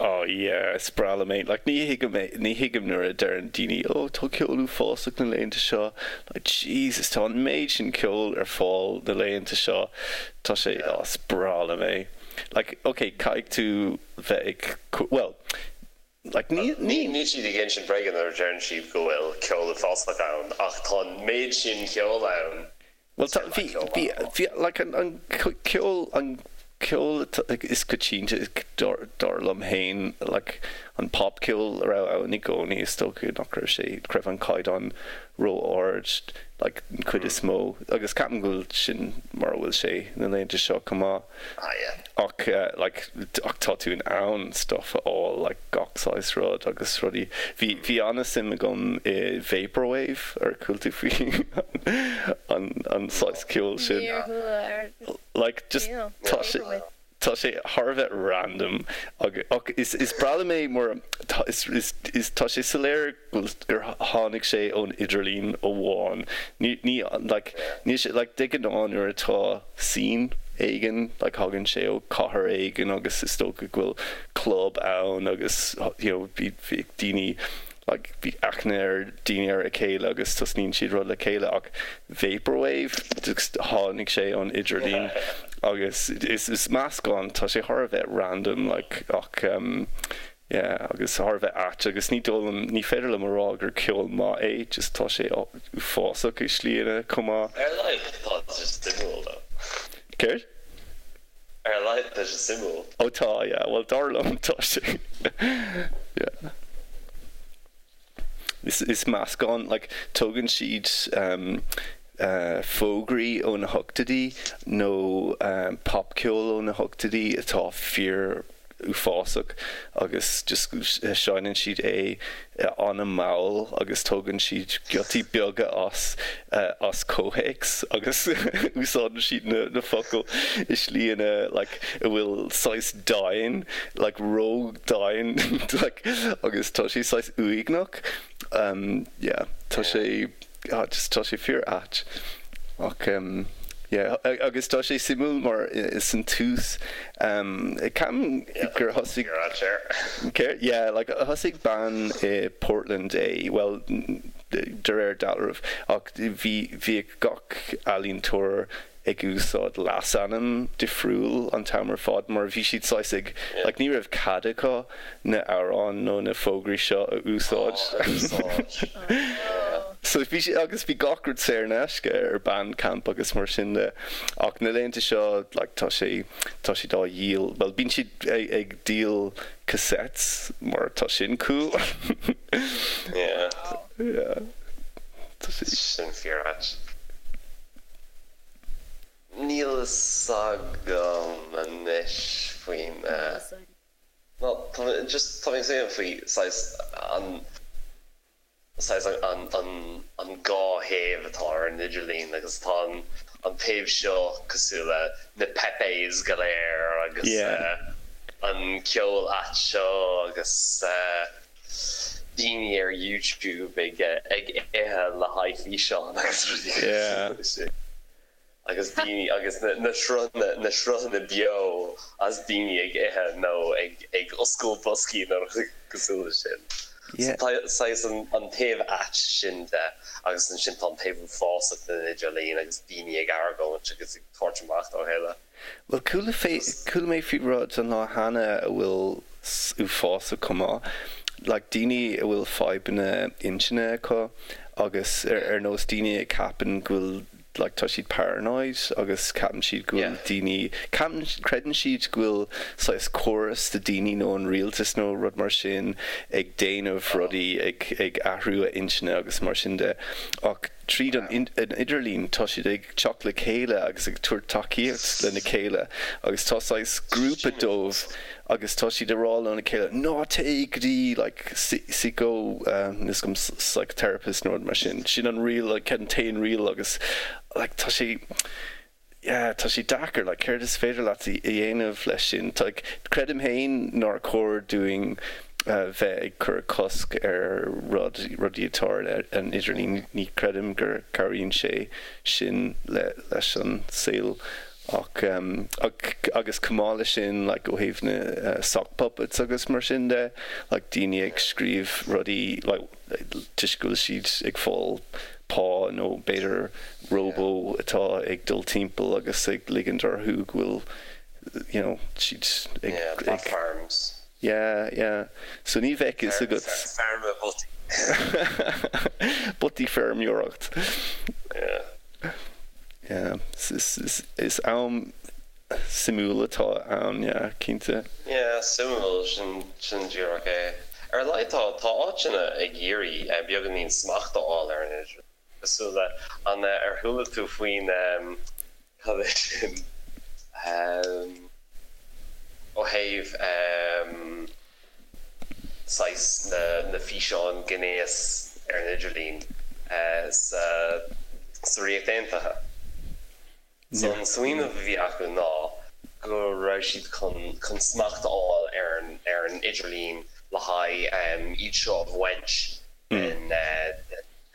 Oh yeah, is breá liom é. Like ní thuigim é, ní thuigim nuair a deireann daoine oh tá ceol uafásach na laethanta seo. Like Jesus, tá an méid sin ceoil ar fáil na laethanta seo. Tá sé, oh is breá liom é. Like ok, caithfidh tú bheith ag, well, like ní, ní. Níl siad ag insint bréige nuair a deireann siad go bhfuil ceol uafásach ann ach tá an méid sin ceoil ann Bhuel tá, bhí, bhí, bhí, like an, an ceol, an ceol is coitianta dar, dar liom fhéin, like an popcheol a raibh ann i gcónaí, is dócha nach raibh sé, nach raibh an caighdeán ró-ard, like an chuid is mó, agus ceapaim go bhfuil sin mar a bhfuil sé na laethanta seo chomh maith. Ah yeah. Ach like ach tá tú in ann stuff a fháil like gach saghas rud agus rudaí. Bhí bhí an-suim agam i vaporwave ar chuala tú faoi an an saghas ceoil sin? Níor chuala ar Like just níl. tá sé Vaporwave. tá sé thar a bheith random agus ach is is breá liom é mar tá is is is tá sé soiléir go bhfuil gur tháinig sé ón idirlíon amháin. Ní ní like níl sé like de ghnáth nuair atá scene éigin like thagann sé ó chathair éigin agus is dócha go bhfuil club ann agus you know bhí bhí daoine like bhí aithne ar daoine ar a chéile agus tosnaíonn siad rud le chéile ach vaporwave just tháinig sé ón idirlíon agus is is meascán tá sé thar a bheith random like ach um Yeah, agus thar a bheith ait agus ní dóigh liom, ní féidir liom a rá gur ceol maith é, just tá sé uafásach i slíanna chomh maith. Ar a laghad tá sé suimiúil though. Céard? Ar a laghad tá sé suimiúil. Ó tá, yeah, bhuel dar liom tá sé, yeah. Is, is meascán, like, tógann siad um, uh, fógraí ó na hochtóidí nó um, popcheol ó na hochtóidí atá fíor uafásach agus just seinneann siad é an-mhall agus tógann siad giotaí beaga as as comhthéacs agus úsáideann siad na na focail i slíanna like a bhfuil saghas domhain like ró-dhomhain like agus tá sé saghas uaigneach um yeah tá sé. Ah just tá sé fíor ait. Ach em yeah agus tá sé suimiúil mar san tús em ceapaim gur thosaigh Fíor ait air. Céard? Yeah like thosaigh bean i Portland é, bhuel de réir dealraimh ach bhí bhíodh gach ealaíontóir ag úsáid leasainm difriúil an t-am ar fad mar bhí siad saghas ag like ní raibh cead acu na amhráin nó na fógraí seo a úsáid. So bhí siad agus bhí gach rud saor in aisce ar Bandcamp agus mar sin de ach na laethanta seo like tá sé tá siad á dhíol bhuel bíonn siad ag díol cassettes mar tá sin cool. Yeah. Yeah. Tá sé. Sin fíor ait. Níl a fhios agam anois faoin No, tá mé just tá mé ag smaoineamh faoi saghas an saghas an an an dá thaobh atá ar an idirlíon agus tá an an taobh seo cosúil le na Pepes go léir agus an ceol ait seo agus daoine ar YouTube ag ag ithe le haghaidh físeán agus rudaí cosúil leis sin. Agus daoine agus na sruthanna na sruthanna beo as daoine ag ithe nó ag ag oscailt boscaí nó rudaí cosúil leis sin. So tá saghas an an taobh ait sin de agus ansin tá an taobh uafásach den idirlíon agus daoine ag argóint agus ag tabhairt amach dá chéile. Bhuel, chuala fé, chuala mé faoi rud an lá cheana a bhfuil uafásach chomh maith. Like, daoine a bhfuil fadhbanna intinne acu agus ar, ar nós daoine a cheapann go bhfuil, like, tá siad paranoid agus ceapann siad go bhfuil daoine, ceapann, creideann siad go bhfuil saghas córas de daoine nó an rialtas nó rud mar sin ag déanamh rudaí, ag, ag athrú a intinne agus mar sin de. Ach Tríd an idirlíon tá siad ag teacht le chéile agus ag tabhairt tacaíocht lena chéile agus tá saghas grúpa dóibh agus tá siad ag rá lena chéile ná téigh go dtí like psycho níl 'fhios agam psychotherapist nó rud mar sin. Sin an riail like an t-aon riail agus like tá sé yeah, tá sé deacair, like, céard is féidir leat a dhéanamh leis sin? Like, creidim féin nár chóir dúinn bheith ag cur cosc ar rud, rudaí atá ar an idirlíon, ní chreidim gur cabhraíonn sé sin le, leis an saol ach, ach, agus chomh maith leis sin, like, ó thaobh na sock puppets agus mar sin de, like, daoine ag scríobh rudaí, like, toisc go bhfuil siad ag fáil pá nó b'fhéidir róbó atá ag dul timpeall agus ag ligint orthu go bhfuil you know siad ag Yeah, bot farms. Yeah, yeah. So ní bheadh fhios agat. Feirme botaí. Botaí feirmeoireacht. Yeah. Yeah. Is am suimiúil atá ann, yeah, cinnte. Yeah, suimiúil, sin, sin díreach é. Ar a laghad tá, tá áiteanna ag iarraidh beagáinín smacht a fháil ar an idirlíon, cosúil le, an, ar chuala tú faoin, cad é sin, ó thaobh saghas na, na físeáin gnéas ar an idirlíon sa, sa Ríocht Aontaithe? So an smaoineamh a bhí acu ná go raibh siad chun chun smacht a fháil ar an ar an idirlíon le haghaidh iad seo a bhaint den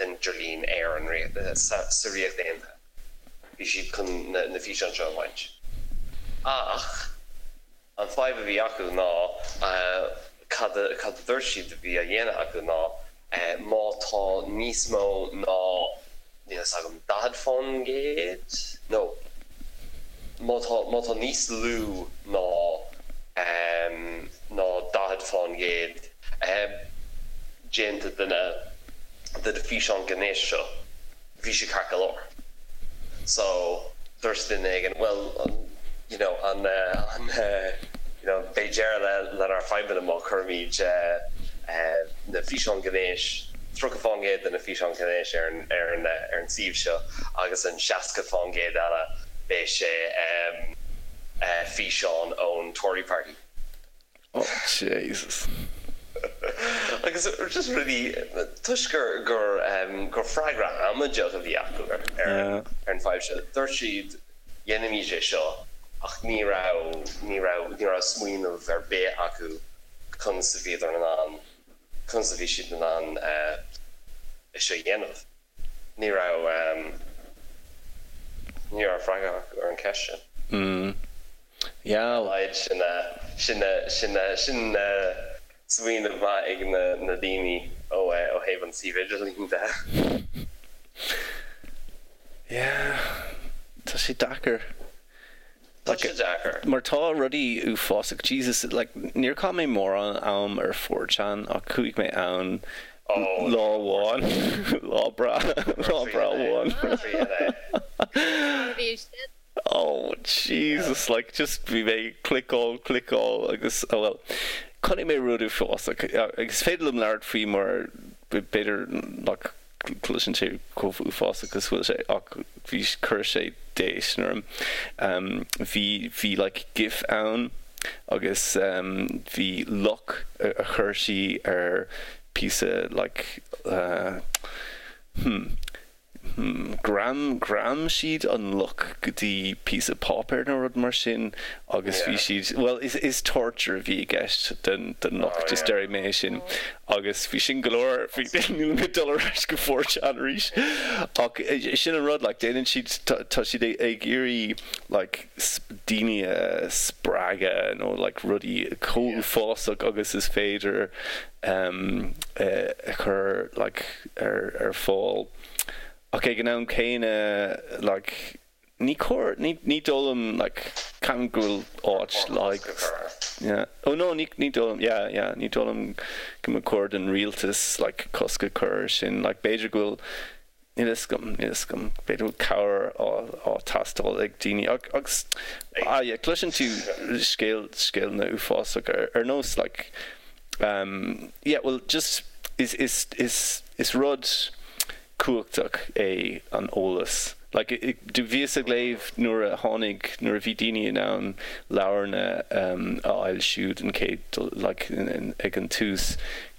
den idirlíon ar an sa sa Ríocht Aontaithe. Bhí siad chun na na físeáin seo a bhaint. Ach an fadhb a bhí acu ná cad a cad a dúirt siad a bhí á dhéanamh acu ná má tá níos mó ná, níl fhios agam, 40% nó má tá má tá níos lú ná ná 40% déanta de na de na físeáin gnéis seo. bhí sé ceart go leor. So, dúirt duine éigin, bhuel, you know, an, an, you know, beidh deireadh le, lenár fadhbanna má chuirimid na físeáin gnéis, 30% de na físeáin gnéis ar an, ar an, ar an suíomh seo agus an 60% eile beidh sé físeáin ón Tory Party. Oh Jesus. Agus just rudaí, toisc gur, gur, gur freagra amaideach a bhí acu ar, ar an fadhb seo, dúirt siad dhéanfaimid é seo ach ní raibh, ní raibh, ní raibh smaoineamh ar bith acu conas a bhíodar in ann, conas a bhí siad in ann é seo a dhéanamh. Ní raibh ní raibh freagra acu ar an cheist sin. Mm. Yeah. Ar a laghad sin sin sin sin smaoineamh maith ag na na daoine ó ó thaobh an suíomh idirlín de. Yeah. Tá sé deacair. Tá sé deacair. Mar tá rudaí uafásach, Jesus, like, níor chaith mé mórán am ar 4chan ach chuaigh mé ann lá amháin, lá breá, lá breá amháin. Oh Jesus, like, just bhí mé ag cliceáil, cliceáil agus, oh well, chonaic mé rud uafásach agus is féidir liom labhairt faoi mar b'fhéidir nach gcloiseann sé chomh uafásach is bhfuil sé ach bhí chuir sé déistin orm. Bhí bhí like gif ann agus bhí luch a chuir sí ar píosa like hmm hmm ghream ghream siad an luch go dtí píosa páipéir nó rud mar sin agus bhí siad bhuel is is torture a bhí i gceist den den luch just déarfaidh mé é sin. Agus bhí sin go leor, bhí, níl mé ag dul ar ais go 4chan arís. Ach sin an rud, like, déanann siad, tá siad ag iarraidh, like, daoine a spreagadh nó, like, rudaí chomh uafásach agus is féidir a chur, like, ar, ar fáil. Ach ag an am céanna, like, Ní cóir, ní, ní dóigh liom, like, ceapaim go bhfuil áit like, yeah, oh no, ní, ní dóigh liom, yeah, yeah, ní dóigh liom go mba chóir don rialtas, like, cosc a chur air sin, like, b'fhéidir go bhfuil, níl a fhios agam, níl a fhios agam, b'fhéidir go bhfuil cabhair á, á teastáil ag daoine ach, agus, ah yeah, cloiseann tú scéal, scéalna uafásach ar, ar nós, like, um, yeah, well, just, is, is, is, is rud, cumhachtach é an eolas. Like, do bhíos ag léamh nuair a tháinig, nuair a bhí daoine in ann leabharna a fhoilsiú den chéad dul, like, ag an tús,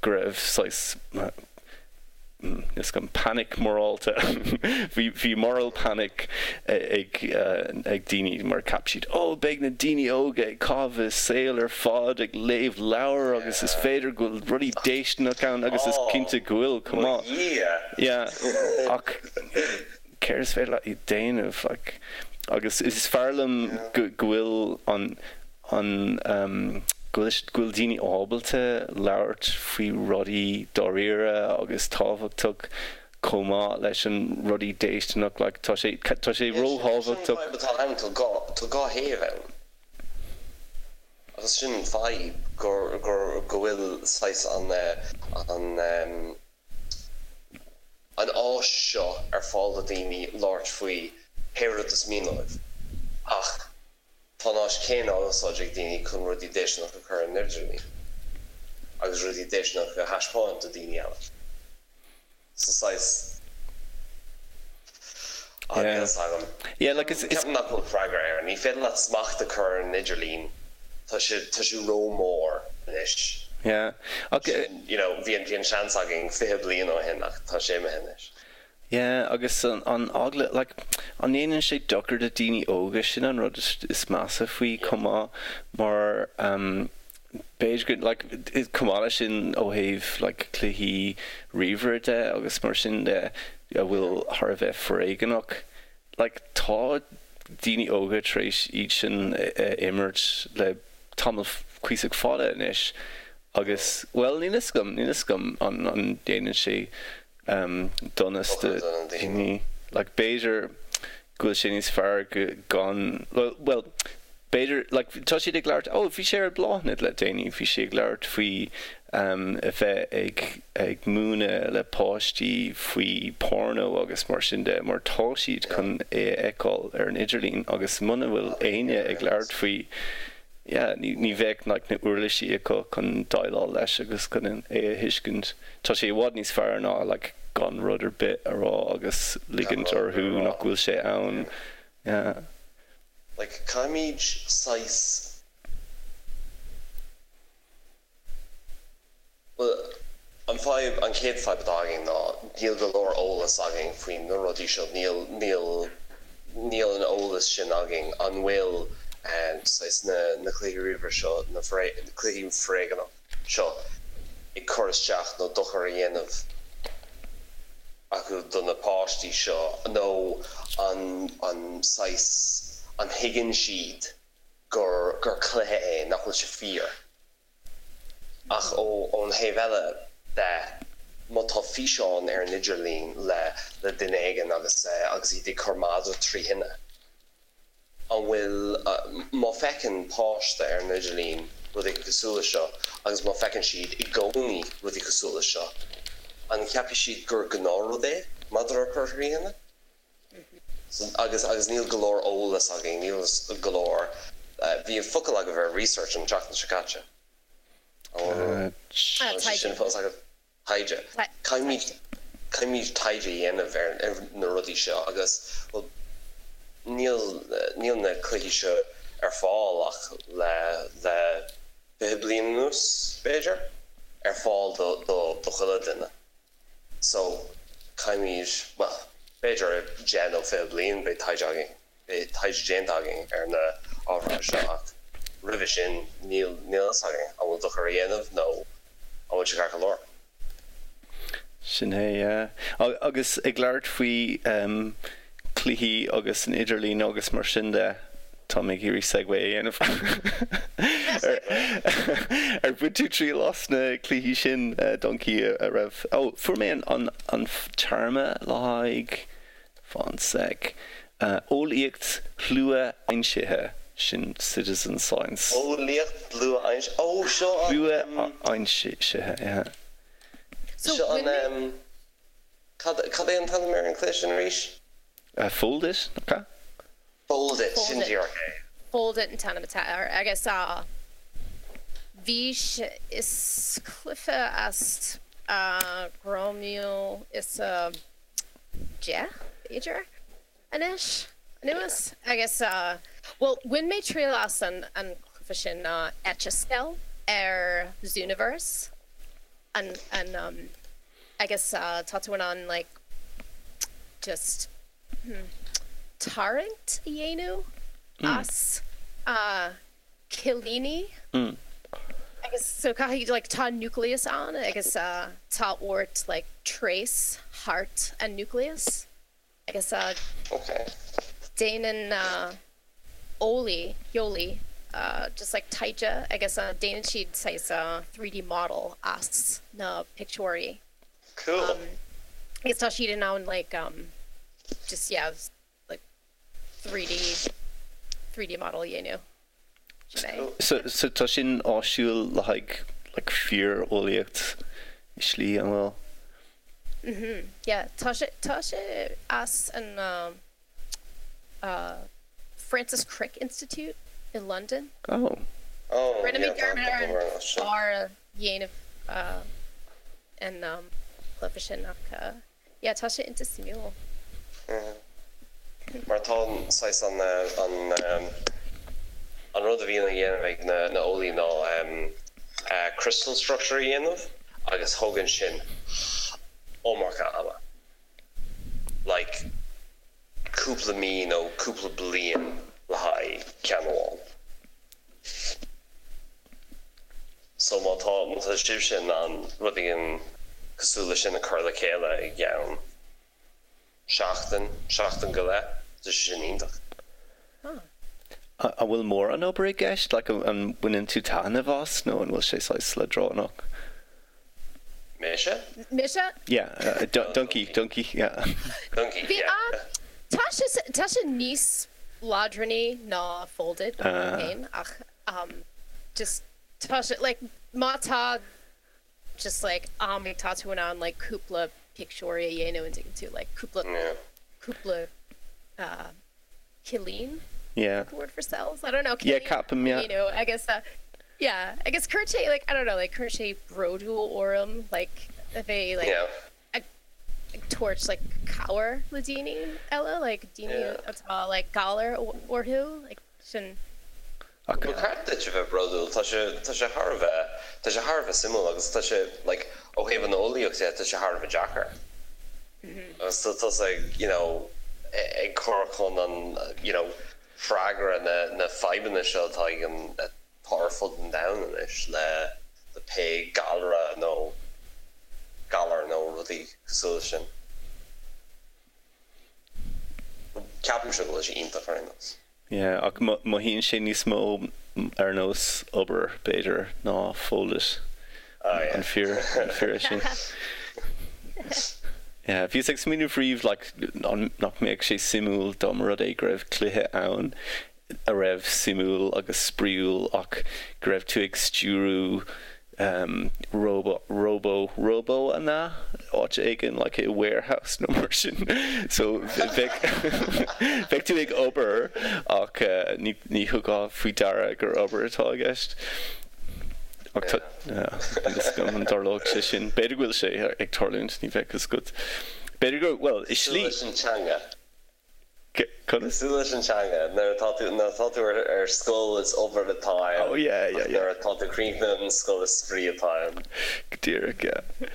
go raibh saghas, níl 'fhios agam, panic morálta, bhí, bhí moral panic ag, ag daoine mar cheap siad, oh, beidh na daoine óga ag caitheamh a saol ar fad ag léamh leabhar agus is féidir go bhfuil rudaí déistineach ann agus is cinnte go bhfuil, chomh maith. Mo Dhia! Yeah, ach céard is féidir leat a dhéanamh, like, agus is fearr liom go go bhfuil an, an, go bhfuil, go bhfuil daoine ábalta labhairt faoi rudaí dáiríre agus tábhachtach chomh maith leis an rudaí déistineach, like, tá sé, tá sé Yeah, sin, sin an róthábhachtach. fadhb atá ann, tá dhá, tá dhá thaobh ann. Agus sin an fadhb, gur, gur, go bhfuil saghas an, an, an áis seo ar fáil do dhaoine labhairt faoi pé rud is mian leo, ach tá an áis chéanna á úsáid ag daoine chun rudaí déistineacha a chur ar an idirlíon agus rudaí déistineacha a thaispeáint do dhaoine eile. So saghas, ah, níl 'fhios agam. Yeah, like is, is. Ceapaim nach bhfuil freagra air. Ní féidir leat smacht a chur ar an idirlíon. Tá sé, tá sé ró-mhór anois. Yeah. Ach. Sin, you know, bhí an, bhí an seans againn 20 bliain ó shin ach tá sé imithe anois. Yeah, agus an, an eagla, like, an ndéanann sé dochar do daoine óga, sin an rud is, is measa faoi chomh maith mar, um, b'fhéidir go, like, chomh maith leis sin ó thaobh, like, cluichí ríomhaire de agus mar sin de a bhfuil thar a bheith foréigeanach, like, tá daoine óga tar éis iad sin a imirt le tamall cuíosach fada anois agus, bhuel, níl 'fhios agam, níl 'fhios agam an, an ndéanann sé donas do dhaoine. Like, b'fhéidir go bhfuil sé níos fearr go, gan, bhuel, b'fhéidir, like, tá siad ag labhairt, oh, bhí sé ar Bláthnaid le déanaí, bhí sí ag labhairt faoi a bheith ag, ag múineadh le páistí faoi porno agus mar sin de, mar tá siad chun é a fheiceáil ar an idirlíon agus muna bhfuil éinne ag labhairt faoi, yeah, ní, ní bheadh like na uirlisí acu chun déileáil leis agus chun é a thuiscint. Tá sé i bhfad níos fearr ná like gan rud ar bith a rá agus ligint orthu nach bhfuil sé ann. Yeah. Like caithfimid saghas. Bhuel, an fadhb, an chéad fadhb atá againn ná níl go leor eolas againn faoi na rudaí seo, níl, níl, níl an eolas sin againn. An bhfuil saghas na, na cluichí ríomhaire seo, na cluichí foréigeanach seo ag cur isteach nó dochar a dhéanamh? acu do na páistí seo nó an an saghas an thuigeann siad gur gur cluiche é, nach bhfuil sé fíor. Ach ó ón thaobh eile de, má tá físeán ar an idirlíon le le duine éigin agus agus iad ag cur madra tri thine, An bhfuil, má feiceann páiste ar an idirlíon rudaí cosúil leis seo agus má feiceann siad i gcónaí rudaí cosúil leis seo, an cheapfaidh siad gur gnáthrud é madra a chur thrí thine? Agus, agus níl go leor eolas againn, níl go leor, bhí focal agaibh ar research an tseachtain seo caite. An bhfuil sé sin fós agaibh? taighde. Caithfimid, caithfimid taighde a dhéanamh ar na rudaí seo agus, bhuel, níl, níl na cluichí seo ar fáil ach le, le 20 bliain anuas, b'fhéidir, ar fáil do, do, do chuile duine. So, caithfimid, bhuel, b'fhéidir i 10 nó 20 bliain beidh taighde againn. Beidh taighde déanta againn ar na ábhair seo ach roimhe sin níl a fhios againn an bhfuil dochar á dhéanamh nó an bhfuil sé ceart go leor. Sin é, yeah. Agus ag labhairt faoi cluichí agus an idirlíon agus mar sin de, tá mé ag iarraidh segue a dhéanamh. Ar bhain tú triail as na cluichí sin, Donkey, a raibh, oh, fuair mé an téarma le haghaidh Fan sec. Eolaíocht shluaaimsithe, sin citizen science. Eolaíocht shluaaimsithe, ó seo an. Sluaaimsithe, yeah. So Seo an em, cad, cad é an t-ainm ar an cluiche sin arís? Foldit, nach ea? Foldit, sin díreach é. Foldit an t-ainm atá air agus bhí sé, is cluiche as 2000 is 10, b'fhéidir, anois, anuas. Agus, bhuel, bhain mé triail as an cluiche sin ná Etch a Sketch ar Zooniverse. An, an, agus tá tú in ann, like, just, hmm, tarraingt a dhéanamh as cillíní agus so caithfidh like tá nucleus ann agus tá ort like trace thart an nucleus agus déanann eolaí, eolaí just like taighde agus déanann siad saghas 3D model as na pictiúirí. Cool. Agus tá siad in ann like just yeah like 3D 3D model a dhéanamh. Sin é. So so tá sin áisiúil le haghaidh like fíor-eolaíocht i slí, an bhfuil? Mhm, yeah. Tá sé tá sé as an uh Francis Crick Institute i Londain. Oh. Oh, Rinne mé yeah, tá dearmad ar tá an mar sin. fear a dhéanamh uh an um cluiche sin ach uh Yeah, tá sé iontach suimiúil. Mar tá an saghas an an an rud a bhíonn á dhéanamh ag na na eolaí ná crystal structure a dhéanamh agus thógann sin iomarca ama. Like cúpla mí nó cúpla bliain le haghaidh ceann amháin. So má tá, má tá sibhse in ann rud éigin cosúil leis sin a chur le chéile i gceann seachtain, seachtain go leith, tá sé sin iontach. An bhfuil mórán obair i gceist? Like, an mbaineann tú taitneamh as nó an bhfuil sé saghas leadránach? Mise? Mise? Yeah, Donkey, Donkey, yeah. Donkey, yeah. Tá sé, tá sé níos leadránaí ná Foldit féin ach just tá sé like má tá just like am tá tú in ann like cúpla pictiúirí a dhéanamh an dtuigeann tú like cúpla cúpla cillín? Yeah. The word for cells? I don't know. Yeah, ceapaim, yeah. You know, agus uh, yeah, agus cuireann sé like I don't know, like cuireann sé bródúil orm like a bheith like Yeah. ag ag tabhairt like cabhair le daoine eile, like daoine Yeah. atá like galar orthu, like sin. Ach Ba cheart duit a bheith bródúil, tá sé tá sé thar a bheith tá sé thar a bheith suimiúil agus tá sé like ó thaobh an eolaíocht de tá sé thar a bheith deacair. Agus tá tusa ag you know ag cur chun an you know freagra na na fadhbanna seo atá ag an atá ar fud an domhain anois le le pé galra nó galar nó rudaí cosúil leis sin. Ceapaimse go bhfuil sé iontach ar aon nós. Yeah, ach mothaíonn sé níos mó ar nós obair, b'fhéidir, ná Foldit. Oh yeah. An fíor, an fíor é sin? Yeah, bhíos ag smaoineamh riamh like an nach mbeadh sé suimiúil dá mba rud é go raibh cluiche ann a raibh suimiúil agus spraíúil ach go raibh tú ag stiúrú róba róbó róbó an ea? áit éigin like i warehouse nó mar sin so bheadh bheadh tú ag obair ach ní ní thugfá faoi deara gur obair atá i gceist. Ach tá níl fhios agam an dtarlódh sé sin. B'fhéidir go bhfuil sé ag tarlúint, ní bheadh fhios agat. B'fhéidir go bhuel i slí. Cosúil leis an teanga. Conas? Cosúil leis an teanga, nuair atá tú, nuair atá tú ar, ar scoil is obair atá ann. Oh yeah, yeah, yeah. Nuair atá tú críochnaithe an scoil is spraoi atá ann. Go díreach, yeah.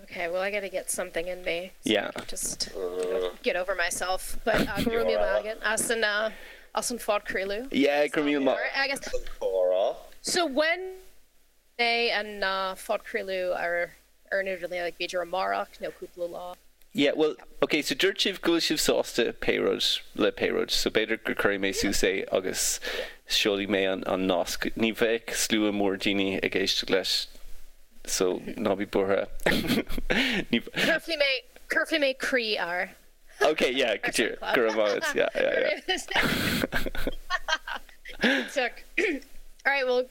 Okay, well I gotta get something in me. So yeah. Just get over myself. But uh, go raibh míle maith agat as an uh, as an phodchraoladh. Yeah, go raibh míle maith. Agus so when é an phodchraoladh ar ar an idirlíon, like b'fhéidir amárach nó cúpla lá. Yeah, bhuel, ok, so dúirt sibh go bhfuil sibh sásta pé rud le pé rud, so b'fhéidir go cuirfidh mé suas é agus seolfaidh mé an an nasc. Ní bheidh slua mór daoine ag éisteacht leis, so ná bí buartha. Ní. Cuirfidh mé, cuirfidh mé croí air. Ok, yeah, go díreach, go raibh maith agat, yeah, yeah, yeah. Alright, well,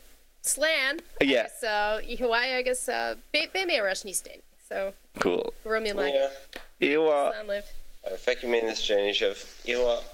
Slán Yeah. agus oíche mhaith agus beidh mé ar ais níos déanaí so Cool. go raibh míle maith agat. Oíche mhaith. Slán libh. Feicfidh mé níos déanaí sibh. Oíche mhaith.